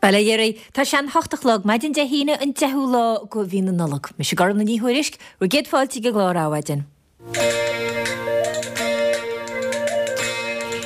Bail ó Dhia oraibh. Tá sé an hocht a chlog, maidin Dé hAoine an 10ú lá de mhí na Nollag. Mise Gormfhlaith Ní Thuairisg, bhur gcéad fáilte ag an gclár Adhmhaidin.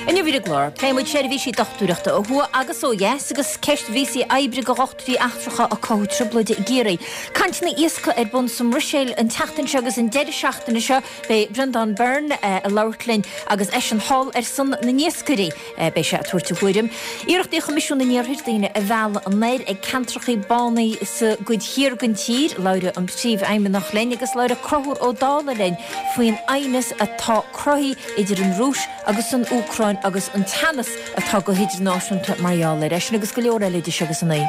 Inniu ar an gclár, pléifidh muid seirbhísí dochtúireachta ó thuaidh agus ó dheas agus ceist víosaí oibre do dhochtúirí eachtracha ag cothú trioblóide i gCiarraí. Cainteanna iascaigh ar bun sa mBruiséil an tseachtain seo agus an deireadh seachtaine seo beidh Breandán Byrne ag labhairt linn agus eisean thall ar son na n-iascairí. Beidh sé ag tabhairt a thuairim. Iarrachtaí Choimisiún an Iarthair daoine a mhealladh anoir ag ceantrachaí bánaí sa gcuid thiar den tír. Labhróidh an Príomhfheidhmeannach linn agus labhróidh Conchúr Ó Dálaigh linn faoin aighneas atá cruthaithe idir an Rúis agus an Úcráin agus an teannas atá go hidirnáisiúnta mar gheall air. É sin agus go leor eile idir seo agus a naoi.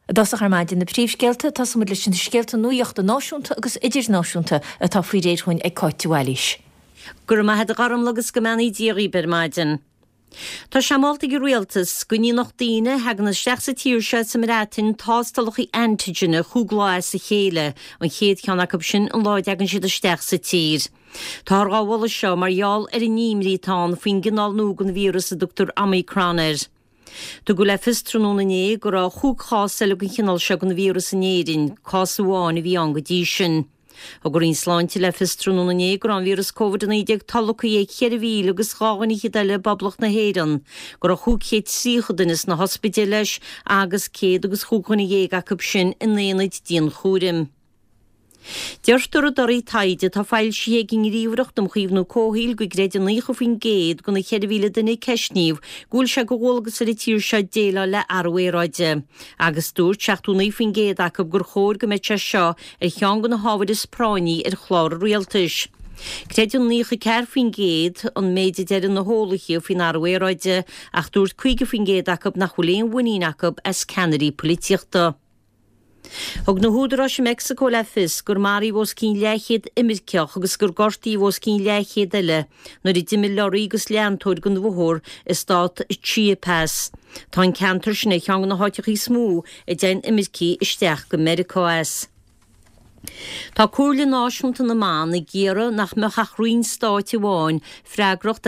I dtosach ar maidin, na príomhscéalta, tosóidh muid leis na scéalta nuachta náisiúnta agus idirnáisiúnta atá faoi réir chugainn ag Cáit de Bhailís. Go raibh maith a't a Ghormfhlaith agus go mbeannaí Dia dhaoib ar maidin. Tá sé molta ag an Rialtas go ndéanfadh daoine a thagann isteach sa tír seo as an mBreatain tástálacha antigine chúig lá as a chéile, an chéad cheann acu sin an lá a dtagann siad isteach sa tír. Táthar dhá mholadh seo mar gheall ar an imní atá ann faoin gcineál nua den víreas a dtugtar Omicron air. Tugadh le fios tráthnóna inné go raibh chúig chás eile den chineál seo den víreas in Éirinn, cás amháin a bhí ann go dtí sin. Thug an Roinn Sláinte le fios tráthnóna inné go raibh an víreas Covid-19 tolgtha ag 4,000 agus 2 dhuine fhichead eile i bPoblacht na hÉireann, go raibh 530 duine sna hospidéil leis agus céad agus chúig dhuine dhéag acu sin in aonaid dianchúraim. Deirtear i dtorthaí taighde atá foilsithe ag an nGníomhaireacht um Chaomhnú Comhshaoil go gcreideann 90% de na 4,000 duine a ceistníodh go bhfuil sé de dhualgas ar an tír seo déileáil le athrú aeráide. Agus dúirt 79% acu gur chóir go mbeadh sé seo ar cheann de na hábhair is práinní ar chlár an rialtais. Creideann 94% an méid a deireann na heolaithe faoin athrú aeráide ach dúirt 50% acu nach bhfuil aon mhuinín acu as ceannairí polaitíochta. Thug na húdaráis i Meicsiceo le fios gur maraíodh os cionn leathchéad imirceach agus gur gortaíodh os cionn leathchéad eile nuair a d'imigh lorraí agus leantóir den bhóthar i stát Chiapas. Tá an ceantar sin ar cheann de na háiteacha is mó a dtéann imircigh isteach go Meiriceá as. Tá Comhairle Náisiúnta na mBan ag iarraidh nach mbeadh ach roinn stáit amháin freagrach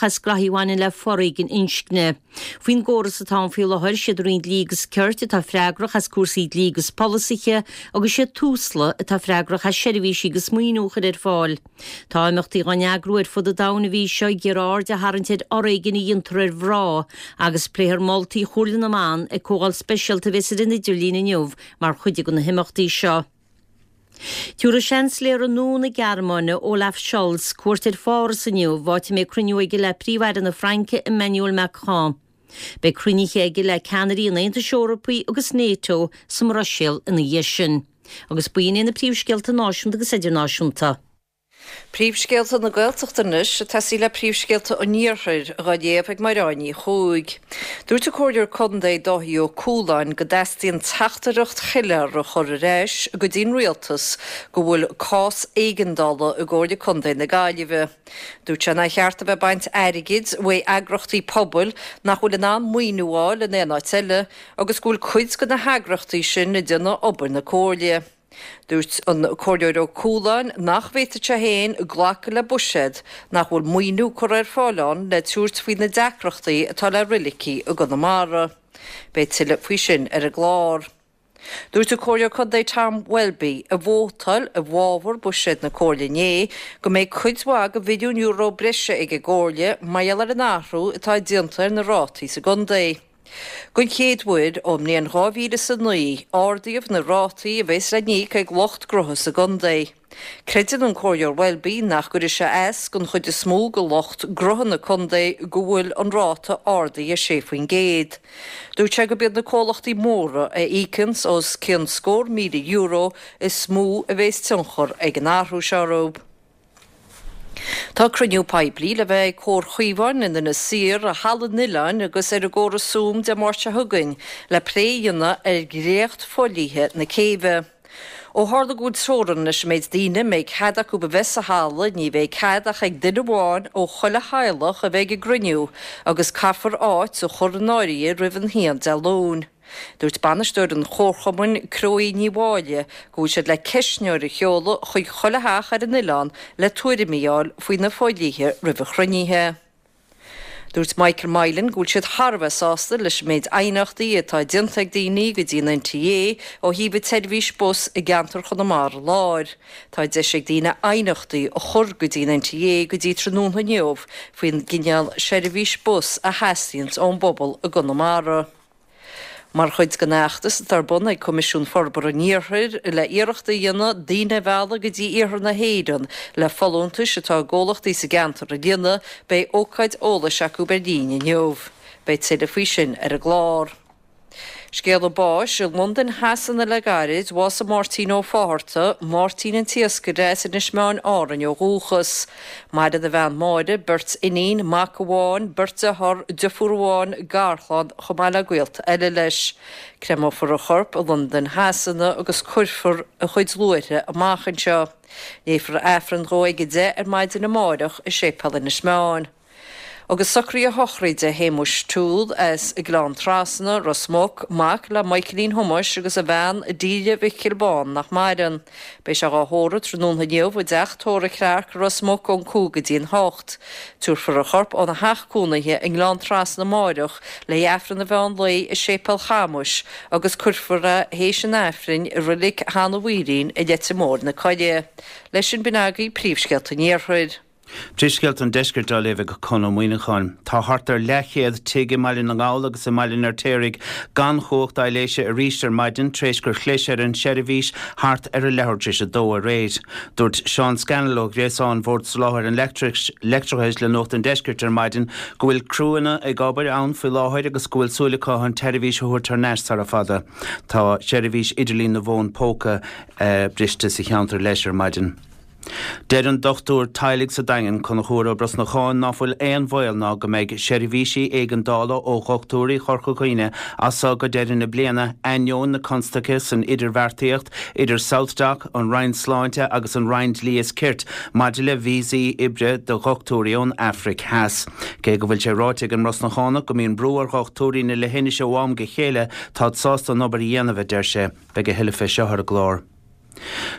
as graithí a bhaineann le foréigean inscne. Faoin gcóras atá ann faoi láthair, siad Roinn Dlí agus Cirt atá freagrach as cúrsaí dlí agus polasaithe agus siad Tusla atá freagrach as seirbhísí agus maoiniú a chur ar fáil. Tá imeachtaí á n-eagrú ar fud an domhain an mhí seo ag iarraidh aird a tharraingt ar fhoréigean a dhéantar ar mhná agus pléifear moltaí Chomhairle na mBan ag comhdháil speisialta a bheas ar an idirlíon inniu mar chuid de na himeachtaí seo. Tabharfaidh Seansailéir nua na Gearmáine, Olaf Scholz, cuairt ar Pháras inniu, áit a mbeidh cruinniú aige le Príomh-Aire na Fraince, Emmanuel Macron. Beidh cruinnithe aige le ceannairí an Aontais Eorpaigh agus NATO sa mBruiséil ina dhiaidh sin. Agus b'in iad na príomhscéalta náisiúnta agus idirnáisiúnta. Príomhscéalta na Gaeltachta anois, ag tosaí le príomhscéalta an Iarthair, dhá léamh ag Mairéad Ní Chuaig. Dúirt an Comhairleoir Contae Dáithí Ó Cualáin go dteastaíonn teachtaireacht shoiléir a chur ar ais go dtí'n Rialtas go bhfuil cás éigeandála i gComhairle Contae na Gaillimhe. Dúirt sé nár cheart a bheith ag baint airgid uaidh eagrachtaí pobail nach bhfuil in ann maoiniú a fháil in aon áit eile agus go bhfuil cuid de na heagrachtaí sin ag déanamh obair na Comhairle. Dúirt an Comhairleoir Ó Cualáin nach bhféadfadh sé féin glacadh le buiséad nach bhfuil maoiniú curtha ar fáil ann le tabhairt faoi na deacrachtaí atá le roilicí i gConamara. Beidh tuilleadh faoi sin ar an gclár. Dúirt an Comhairleoir Contae Tom Welby, a vótáil i bhfabhar buiséad na Comhairle inné, go mbeidh cuid mhaith de mhilliún euro breise ag an gComhairle mar gheall ar an athrú atá déanta ar na rátaí sa gcontae. Don chéad uair ón mbliain 2009, ardaíodh na rátaí a bheas le n-íoc ag lucht gnótha sa gcontae. Creideann an Comhairleoir Welby nach gcuirfidh sé as don chuid is mó de lucht gnótha na contae go bhfuil an ráta ardaithe 6%. Dúirt sé gurb iad na comhlachtaí móra a íocanns os cionn scór €1,000 is mó a bheas tionchar ag an athrú seo orthu. Tá cruinniú poiblí le bheith ag Comhar Chaomháin in Inis Oírr, i Halla an Oileáin agus ar an gcóras Zoom Dé Máirt seo chugainn le plé a dhéanamh ar dhréacht fodhlíthe na céibhe. Ó tharla go bhfuil teorainn leis an méid daoine a mbeidh cead acu a bheith sa halla, ní bheidh cead ach ag duine amháin ó chuile theaghlach a bheith ag an gcruinniú agus caithfear áit a chur in áirithe roimh an haon Dé Luain. Dúirt bainisteoir an chomharchumainn, Cróí Ní Mháille, go bhfuil siad le ceistneoir a sheoladh chuig chuile theach ar an oileán le tuairimí a fháil faoi na fodhlíthe roimh an chruinnithe. Dúirt Michael Mylan go bhfuil siad thar a bheith sásta leis an méid aighneachtaí atá déanta ag daoine go dtí an NTA ó thaobh an tseirbhís bus i gceantar Chonamara Láir. Tá deis ag daoine aighneachtaí a chur go dtí an NTA go dtí tráthnóna inniu faoin gcineál seirbhís bus a theastaíonns ón bpobal i gConamara. Mar chuid den fheachtas atá ar bun ag Coimisiún Forbartha an Iarthair le iarracht a dhéanamh daoine a mhealladh go dtí iarthar na hÉireann le folúntais atá i gcomhlachtaí sa gceantar a líonadh, beidh ócáid eolais acu ar líne inniu. Beidh tuilleadh faoi sin ar an gclár. Scéala báis i Londain Shasana le gairid, bhásaigh Máirtín Ó Fátharta, Máirtín an tIascaire as Inis Meáin, Árainn ó dhúchas. Maireann a bhean Máire, beirt iníon, mac amháin, beirt dearthár, deirfiúr amháin, garchlann, chomh maith le gaolta eile leis. Créamófar a chorp i Londain Shasana agus cuirfear a chuid luaithre amach anseo. Léifear Aifreann dhó ag 10 ar maidin amáireach i Séipéal Inis Meáin. Agus socruithe sochraide Shéamuis Toole as Gleann Trasna, Ros Muc, mac le Michaelín Thomáis agus a bhean Delia Mhicil Bán nach maireann. Beidh sé dhá thórramh tráthnóna inniu i dteach tórraimh Clarke, Ros Muc ón 5 go dtí an 8. Tabharfar a chorp óna theach cónaithe i nGleann Trasna amáireach le hAifreann an mheán lae i Séipéal Chamuis agus cuirfear é théis an Aifrinn i Reilig Sheanadh Mhaoilín i Leitir Móir na Coille. Leis sin b'in agaibh príomhscéalta an Iarthair. Príomhscéalta an Deiscirt á léamh ag Conn Ó Muíneacháin. Tá thart ar leathchéad tigh i mBaile na nGall agus i mBaile an Fheirtéaraigh gan chumhacht aibhléise arís ar maidin tar éis gur chlis ar an tseirbhís thart ar a leathuair tar éis a dó aréir. Dúirt Seán Scannell ó ghréasán Bhord Soláthair an Leictreachais le Nuacht an Deiscirt ar maidin go bhfuil criúnna ag obair ann faoi láthair agus go bhfuil súil acu an tseirbhís a thabhairt thar n-ais sara fada. Tá seirbhís idirlín na bhfón póca briste sa cheantar leis ar maidin. Deir an dochtúir teaghlaigh sa Daingean, Conchúr Ó Brosnacháin, ná fuil aon bhaol ná go mbeidh seirbhísí éigeandála ó dhochtúirí Chorca Dhuibhne as so go deireadh na bliana, ainneoin na constaice san idirbheartaíocht idir SouthDoc, an Roinn Sláinte agus an Roinn Dlí is Cirt maidir le víosaí oibre do dhochtúirí ón Afraic Theas. Cé go bhfuil sé ráite ag an mBrosnachánach go mbíonn brú ar dhochtúirí na leithinise ó am go chéile, táid sásta an obair a dhéanamh, a deir sé. Beidh a thuilleadh fé seo ar an gclár.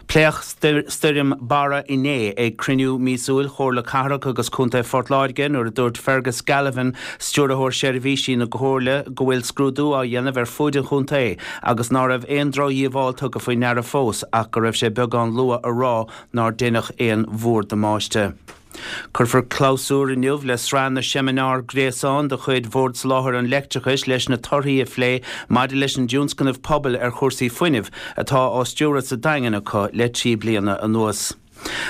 Pléadh Stoirm Barra inné ag cruinniú míosúil Chomhairle Cathrach agus Contae Phort Láirge nuair a dúirt Fergus Galvin, Stiúrthóir Seirbhísí na Comhairle, go bhfuil scrúdú á dhéanamh ar fuaid an chontae agus ná raibh aon drochdhíobháil tugtha faoi ndeara fós ach go raibh sé beagán luath a rá nár deineadh aon mhórdhamáiste. Cuirfear clabhsúr inniu le sraith na seimineár gréasáin de chuid Bhord Soláthair an Leictreachais leis na torthaí a phlé maidir leis an dtionscnamh pobail ar chúrsaí fuinnimh atá á stiúradh sa Daingean acu le 3 bliana anuas.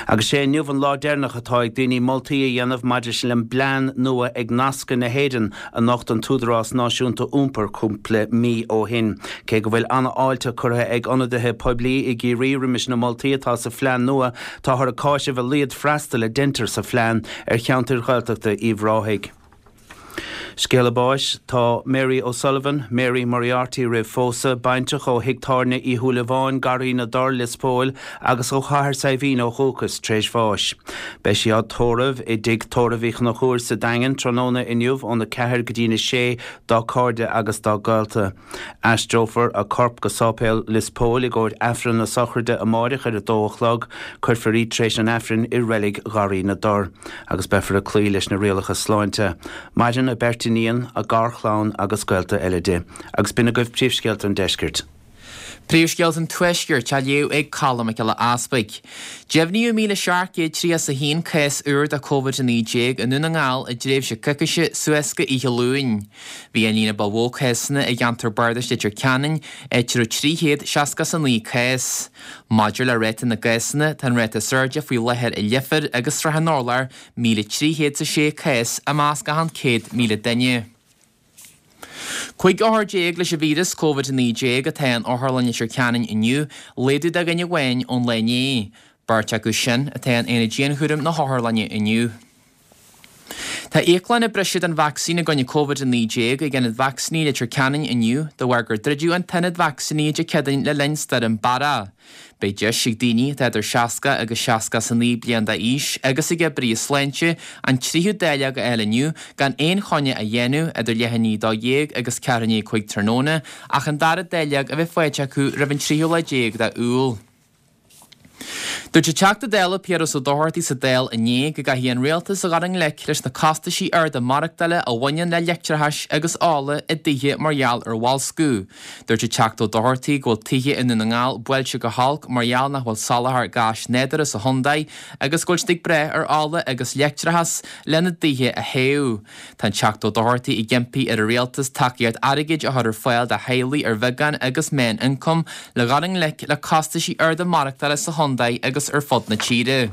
Agus sé inniu an lá deireanach atá ag daoine moltaí a dhéanamh maidir leis an bplean nua ag Nascadh na hÉireann a nocht an tÚdarás Náisiúnta Iompair cúpla mí ó shin. Cé go bhfuil an-fháilte curtha ag ionadaithe poiblí i gCiarraí roimis na moltaí atá sa phlean nua, Táthar ag cáiseamh a laghad freastail a deintear sa phlean ar cheantair Ghaeltachta Uíbh Ráthaigh. Scéala báis, Tá Mary O'Sullivan, Mary Moriarty roimh phósadh, baintreach ó thigh tábhairne Uí Shúilleabháin, Garraí na dTor, Lios Póil, agus ó Chathair Saidhbhín ó dhúchas, tar éis bháis. Beidh sí á tórramh i dTigh Tórraimh Uí Chonchúir sa Daingean tráthnóna inniu óna 4 go dtína 6 dá cairde agus dá gaolta. Aistreofar a corp go Sáipéal Lios Póil i gcomhair Aifreann na sochraide amáireach ar a dó a chlog. Cuirfear í tar éis an Aifrinn i Reilig Gharraí na dTor agus beifear ag cloí leis na rialacha sláinte. Maireann a beirt iníon, a garchlann agus gaolta eile di. Agus b'in agaibh príomhscéalta an deiscirt. Príomhscéalta an Tuaiscirt á léamh ag Colm Mac Giolla Easpaig. Deimhníodh 1,731 cás úr de Covid-19 i nDún na nGall i dtréimhse coicíse suas go oíche Luain. Bhí an líon ba mhó cásanna i gceantar bardais Leitir Ceanainn, áit a raibh 369 cás. Maidir le ráta na gcásanna, tá an ráta is airde faoi láthair i Leifear agus Srath an Urláir, 1,306 cás i measc achan 100,000 duine. 15 othar leis an víreas Covid-19 atá in Otharlann Leitir Ceanainn inniu, laghdú de dhuine amháin ón lá inné. Beirt acu sin atá in aonad dianchúraim na hotharlainne inniu. Tá íoclann ag briseadh don vacsaín i gcoinne Covid-19 ag Ionad Vacsaíní Leitir Ceanainn inniu de bharr gur druideadh an t-ionad vacsaíní Dé Céadaoin le linn Stoirm Barra. Beidh deis ag daoine atá idir 60 agus 69 bliain d'aois agus ag oibrithe sláinte an tríú dáileog a fháil inniu gan aon choinne a dhéanamh idir leath i ndiaidh 12 agus ceathrú i ndiaidh 5 tráthnóna ach an dara dáileog a bheith faighte acu roimh an tríú lá déag d'Iúil. Dúirt an Teachta Dála Piaras Ó Dochartaigh sa Dáil inné go gcaithfidh an Rialtas a dhul i ngleic leis na costaisí arda maireachtála a bhaineann le leictreachas agus ola i dtithe mar gheall ar bhoilsciú. Dúirt an Teachta Ó Dochartaigh go bhfuil tithe i nDún na nGall buailte go holc mar gheall nach bhfuil soláthar gáis nádúrtha sa chontae agus go bhfuil siad ag brath ar ola agus leictreachas lena dtithe a théamh. Tá an Teachta Ó Dochartaigh ag impí ar an Rialtas tacaíocht airgid a chur ar fáil do theaghlaigh ar bheagán agus meán-ioncam le dhul i ngleic le costaisí arda maireachtála sa chontae agus ar fud na tíre.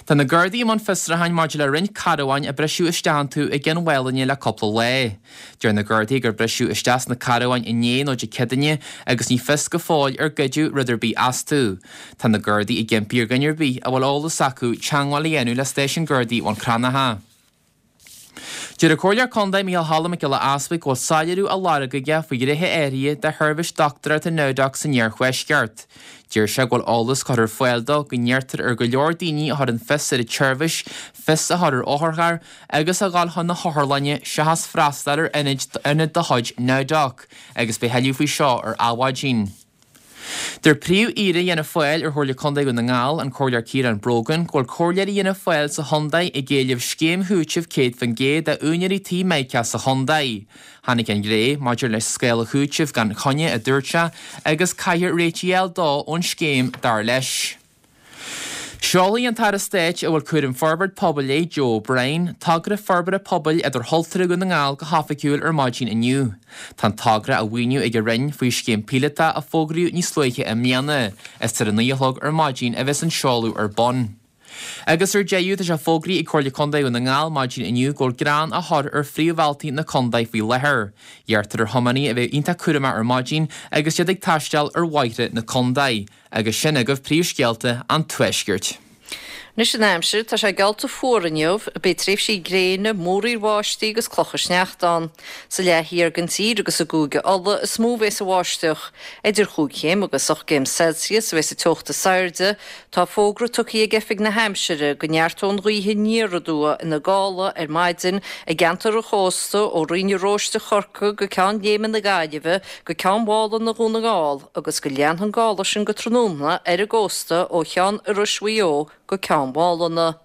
Tá na Gardaí i mbun fiosrúcháin maidir le roinnt carbháin a briseadh isteach iontu i gCionn Mhálanna le cúpla lá. Deir na Gardaí gur briseadh isteach sna carbháin inné nó Dé Céadaoine agus ní fios go fóill ar goideadh rud ar bith astu. Tá na Gardaí ag impí ar dhuine ar bith a bhfuil eolas acu teagmháil a dhéanamh le Stáisiún Gardaí Bhun Cranncha. Deir an Comhairleoir Contae Micheál Choilm Mac Giolla Easbuig go bhfuil soiléiriú á lorg aige faoi ghnéithe áirithe de sheirbhís dochtúireachta NowDoc san iarthuaisceart. Deir sé go bhfuil eolas curtha ar fáil dó go n-iarrtar ar go leor daoine a chuireann fios ar an tseirbhís fios a chur ar otharcharr agus a dhul chun na hotharlainne seachas freastal ar ionad de chuid NowDoc agus beidh tuilleadh faoi seo ar Adhmhaidin. Deir Príomh-Aoire Fhianna Fáil ar Chomhairle Contae Dhún na nGall, an Comhairleoir Ciarán Brogan, go bhfuil comhairleoirí Fhianna Fáil sa chontae ag éileamh scéim chúitimh 100% d'úinéirí tí Mica sa chontae. Tháinig an ghlao maidir le scála chúitimh gan choinne, a dúirt sé, agus caithfear réitigh a fháil dó ón scéim, dar leis. Seolfaidh an tAire Stáit a bhfuil cúram forbairt pobail air, Joe O'Brien, togra forbartha pobail idirchultúrtha Dhún na nGall go hoifigiúil ar maidin inniu. Tá an togra á mhaoiniú ag an Roinn faoi scéim píolótach a fógraíodh níos luaithe i mbliana. Is ar a 9 a chlog ar maidin a bheas an seoladh ar bun. Agus ar deireadh, tá sé fógraithe ag Comhairle Contae Dhún na nGall maidin inniu go bhfuil grean á chur ar phríomhbhealtaí na contae faoi láthair. Iarrtar ar thiománaithe a bheith iontach cúramach ar maidin agus iad ag taisteal ar bhóithre na contae. Agus sin agaibh príomhscéalta an Tuaiscirt. Anois an aimsir, tá sé geallta fuar inniu. Beidh tréimhsí gréine, múraíl bháistí agus clocha sneachta ann. Sa leath thiar den tír agus i gCúige Uladh is mó a bheas an bháisteach. Idir chúig chéim agus ocht gcéim Celsius a bheas an teocht is airde. Tá fógra tugtha ag Oifig na hAimsire go neartóidh an ghaoth aniar aduaidh ina gála ar maidin i gceantar an chósta ó Rinn an Róiste Chorcaí go Ceann Léime na Gaillimhe go Ceann Mhálanna Dhún na nGall. agus go leanfaidh an gála sin go tráthnóna ar an gcósta ó Cheann Iorrais Mhaigh Eo go Ceann Mhálanna.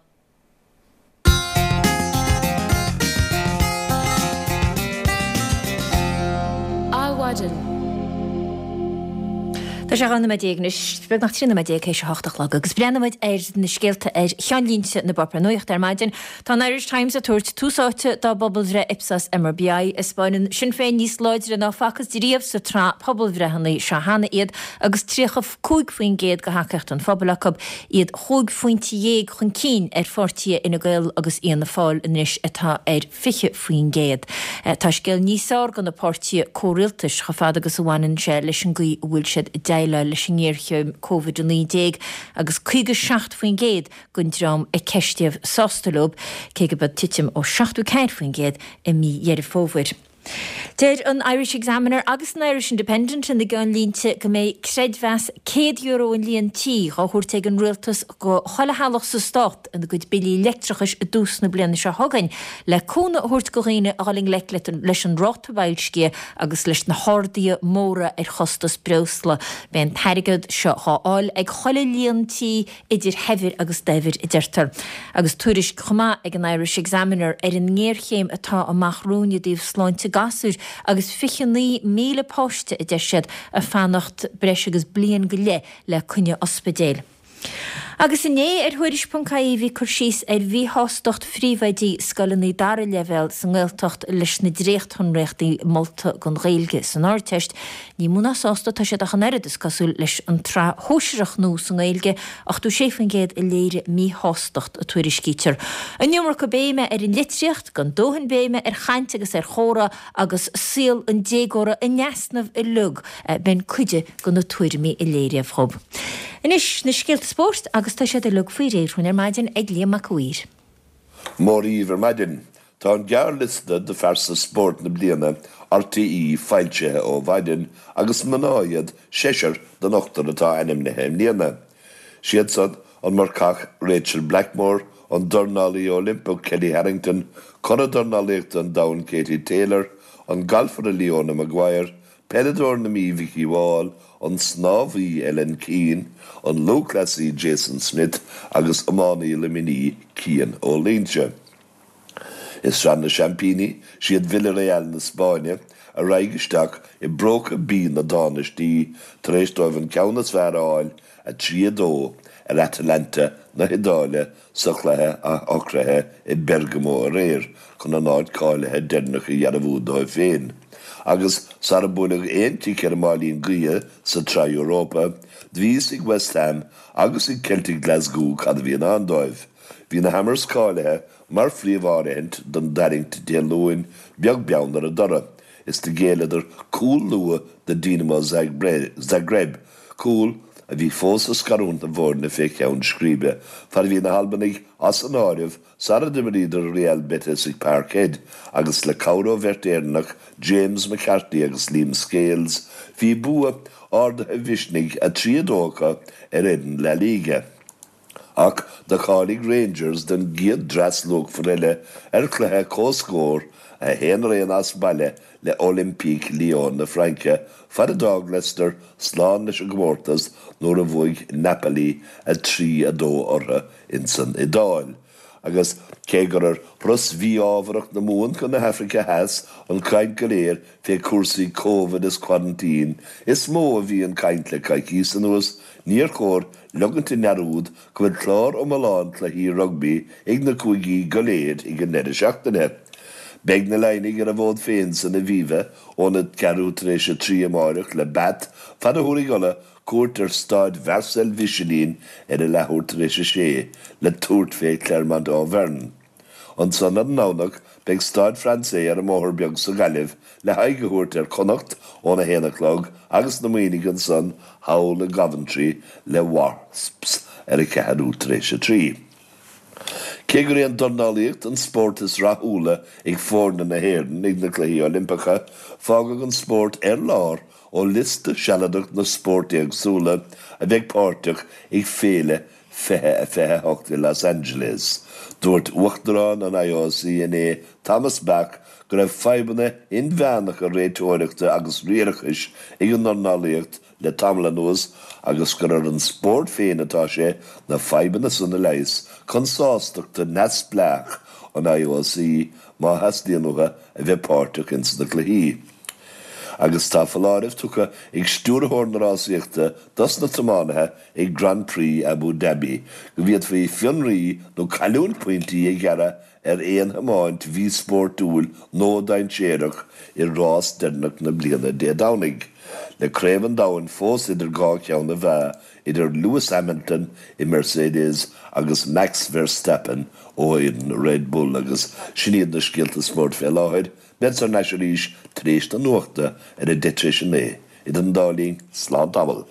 Adhmhaidin. Tá sé 12 nóiméad anois, beagnach 13 nóiméad théis a hocht a chlog, agus breathnaímid ar na scéalta ar cheannlínte na bpáipéar nuachta ar maidin. Tá an Irish Times ag tabhairt tús áite dá bpobalbhreith Ipsos MRBI, a 'spáineann Sinn Féin níos láidre ná facthas riamh sa tsraith pobalbhreitheanna seo cheana iad agus 35% de thacaíocht an phobail acu, iad chúig phointe dhéag chun cinn ar pháirtithe Fhine Gael agus Fhianna Fáil anois atá ar 20%. Tá scéal níos fearr do na páirtithe comhrialtais chomh fada agus a bhaineann sé leis an gcaoi a bhfuil siad ag déileáil leis an ngéarchéim Covid-19 agus 57% den dream a ceistíodh sásta leo, cé go b'in titim ó 74% i mí Dheireadh Fómhair. Deir an Irish Examiner agus an Irish Independent ina gceannlínte go mbeidh creidmheas €100 an líon tí dhá thabhairt ag an rialtas go chuile theaghlach sa stát ina gcuid billí leictreachais i dtús na bliana seo chugainn le cúnamh a thabhairt go dhaoine a dhul i ngleic leis an ráta boilscithe agus leis na harduithe móra ar chostas breosla. Beidh an t-airgead seo dhá fháil ag chuile líon tí idir shaibhir agus daibhir, a deirtear. Agus tuairisc chomh maith ag an Irish Examiner ar an ngéarchéim atá amach romhainn i dtaobh sláinte gasúir agus 29,000 páiste, a deir siad, ag fanacht breis agus bliain go leith le coinne ospidéil. Agus inné ar Thuairisc.ie bhí cur síos ar mhíshástacht phríomhoidí scoileanna dara leibhéal sa nGaeltacht leis na dréachtshonraíochtaí molta don Ghaeilge san Ardteist. Ní mó ná sásta atá siad ach an oiread, is cosúil, leis an tsraith shóisearach nua sa nGaeilge, 86% a léirigh míshástacht, a tuairiscítear. An iomarca béime ar an litríocht, gan dóthain béime ar chaint agus ar chomhrá agus saol an déagóra in easnamh uilig, b'in cuid de na tuairimí a léiríodh dhób. Anois, na scéalta spóirt agus tá siad uilig faoi réir dhúinn ar maidin ag Liam Mac a' Mhaoir. Mora dhaoibh ar maidin. Tá an gearrliosta do Phearsa Spóirt na Bliana RTÉ foilsithe ó mhaidin agus mná iad seisear den ochtar atá ainmnithe i mbliana. Siad san, an marcach Rachael Blackmore, an dornálaí Oilimpeach Kellie Harrington, curadh dornálaíochta an domhain Katie Taylor, an galfaire Leona Maguire. Peileadóir na Mí Vikki Wall, an snámhaí Ellen Keane, an lúthchleasaí Jason Smith agus iománaí Luimnigh Cian Ó Loingsigh. I Sraith na Seaimpíní, siad Villarreal na Spáinne a raghaidh isteach i bPróca B na dTánaistí tar éis dóibh an ceann is fearr a fháil, 3, 2, ar Atalanta na hIodáile sa chluiche athshocraithe i Bergamo aréir chun a n-áit cáilithe deireanach a dhearbhú dóibh féin. Agus sara buaileadh aon chic ar an máilín gaoithe sa tSraith Europa, bhí fhios ag West Ham agus ag Celtic Glasgow cad a bhí i ndán dóibh. Bhí na Hammers cáilithe mar phríomh-áirithint don dtarraingt Dé Luain, beag beann ar a dtoradh, is do ghéilleadar cúl luath do Dinamo Zagreb, cúl a bhí fós ag scarúint na bhfoirne fé cheann scríbe, fad a bhí na hAlbanaigh as an áireamh sara d'imríodar Real Betis ag Parkhead agus le cabhair ó bheirt Éireannach, James McCarthy agus Liam Scales, bhí bua ardaithe mhisnigh 3, 2 acu ar fhoireann La Liga. Ach do cháiligh Rangers don gcéad dreas luachmhar eile ar chluiche comhscóir 1-1 as baile le Olympique Lyon na Fraince, fad a d'fhág Leicester slán leis an gcomórtas nuair a bhuaigh Napoli 3, 2 orthu insan Iodáil. Agus cé gur ar thuras mhí-ámharach na Mumhan chun na hAfraice Theas an chaint go léir fé chúrsaí Covid is quarantine is mó a bhí an chaint le coicíos anuas, níor chóir leogaint i ndearúd go bhfuil clár iomlán cluichí rugbaí ag na cúigí go léir ag an ndeireadh seachtaine. Beidh na Laighnigh ar a bhfód féin san Aviva óna ceathrú tar éis a 3 amáireach le Bath fad a thabharfaidh Ulaidh cuairt ar Staid Mharcel Mhichelin ar a leathuair tar éis a sé le tabhairt fé Clermont Auvergne. Ansan ar an nDomhnach beidh Stade Français ar an mBóthar Beag sa Ghaillimh le haghaidh a thabhairt ar Chonnacht óna haon a chlog agus na Muimhnigh ansan thall i gCoventry le Wasps ar a ceathrú tar éis a 3. Cé gur é an dornálaíocht an spórt is rathúla ag foirne na hÉireann ag na Cluichí Oilimpeacha, fágadh an spórt ar lár ó liosta sealadach na spórt éagsúla a bheidh páirteach ag Féile 2028 i Los Angeles. Dúirt Uachtarán an IOC inné, Thomas Bach, go raibh fadhbanna inmheánacha réiteoireachta agus riarachais ag an ndornálaíocht le tamall anuas agus gur ar an spórt féin atá sé na fadhbanna san a leigheas chun sástachta neamhspleách an IOC má theastaíonn uathu a bheith páirteach ins na cluichí. Agus tá foláireamh tugtha ag stiúrthóir na rásaíochta dos na tiománaithe ag Grand Prix Abu Dhabi go bhféadfaí fionraí nó cailliúint pointí a ghearradh ar aon thiomáint mhíspórtúil nó dainséarach i rás deireanach na bliana Dé Domhnaigh, le Craobh an Domhain fós idir dhá cheann na mheá idir Lewis Hamilton i Mercedes agus Max Verstappen ó fhoireann Red Bull agus sin iad na scéalta spóirt fé láthair. Bead thar n-ais arís tar éis na nuachta ar a 9:30. Idir an dá linn, slán tamall.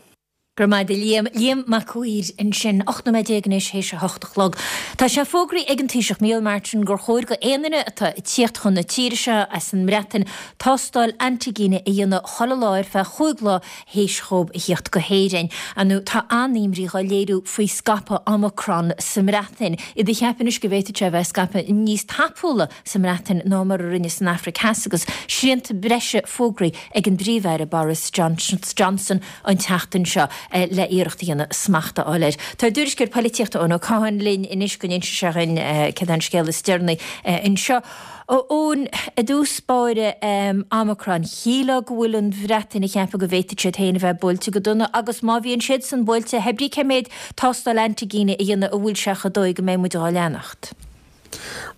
Go raibh maith agat a Liam. Liam Mac Uidhir ansin. 18 nóiméad anois théis a hocht a chlog. Tá sé fógraithe ag an Taoiseach Micheál Martin gur chóir go aon duine atá ag tíocht chun na tíre seo as an mBreatain tástáil antaigine a dhéanamh chuile lá ar feadh chúig lá théis dhóibh a thíocht go hÉirinn. Ar ndóigh tá an-imní dhá léiriú faoi scaipeadh Omicron sa mBreatain. Iad ag ceapadh anois go bhféadfadh sé a bheith ag scaipeadh níos tapúla sa mBreatain ná mar a rinne san Afraic Theas agus srianta breise fógraithe ag an bPríomh-Aire Boris Johnson an tseachtain seo le iarracht a dhéanamh smacht a fháil air. Tá ár dtuairisceoir polaitíochta Eoin Ó Catháin linn anois go n-inse sé dhuinn céard é an scéal is deireanaí anseo. Eoin, i dtús báire, Omicron, shílfeá go bhfuil an Bhreatain ag ceapadh go bhféadfadh siad féin a bheith buailte go dona agus má bhíonn siadsan buailte, hé brí cé méid tástáil antaigine a dhéanamh a bhfuil sé chomh dóigh go mbeidh muid dhá leanacht.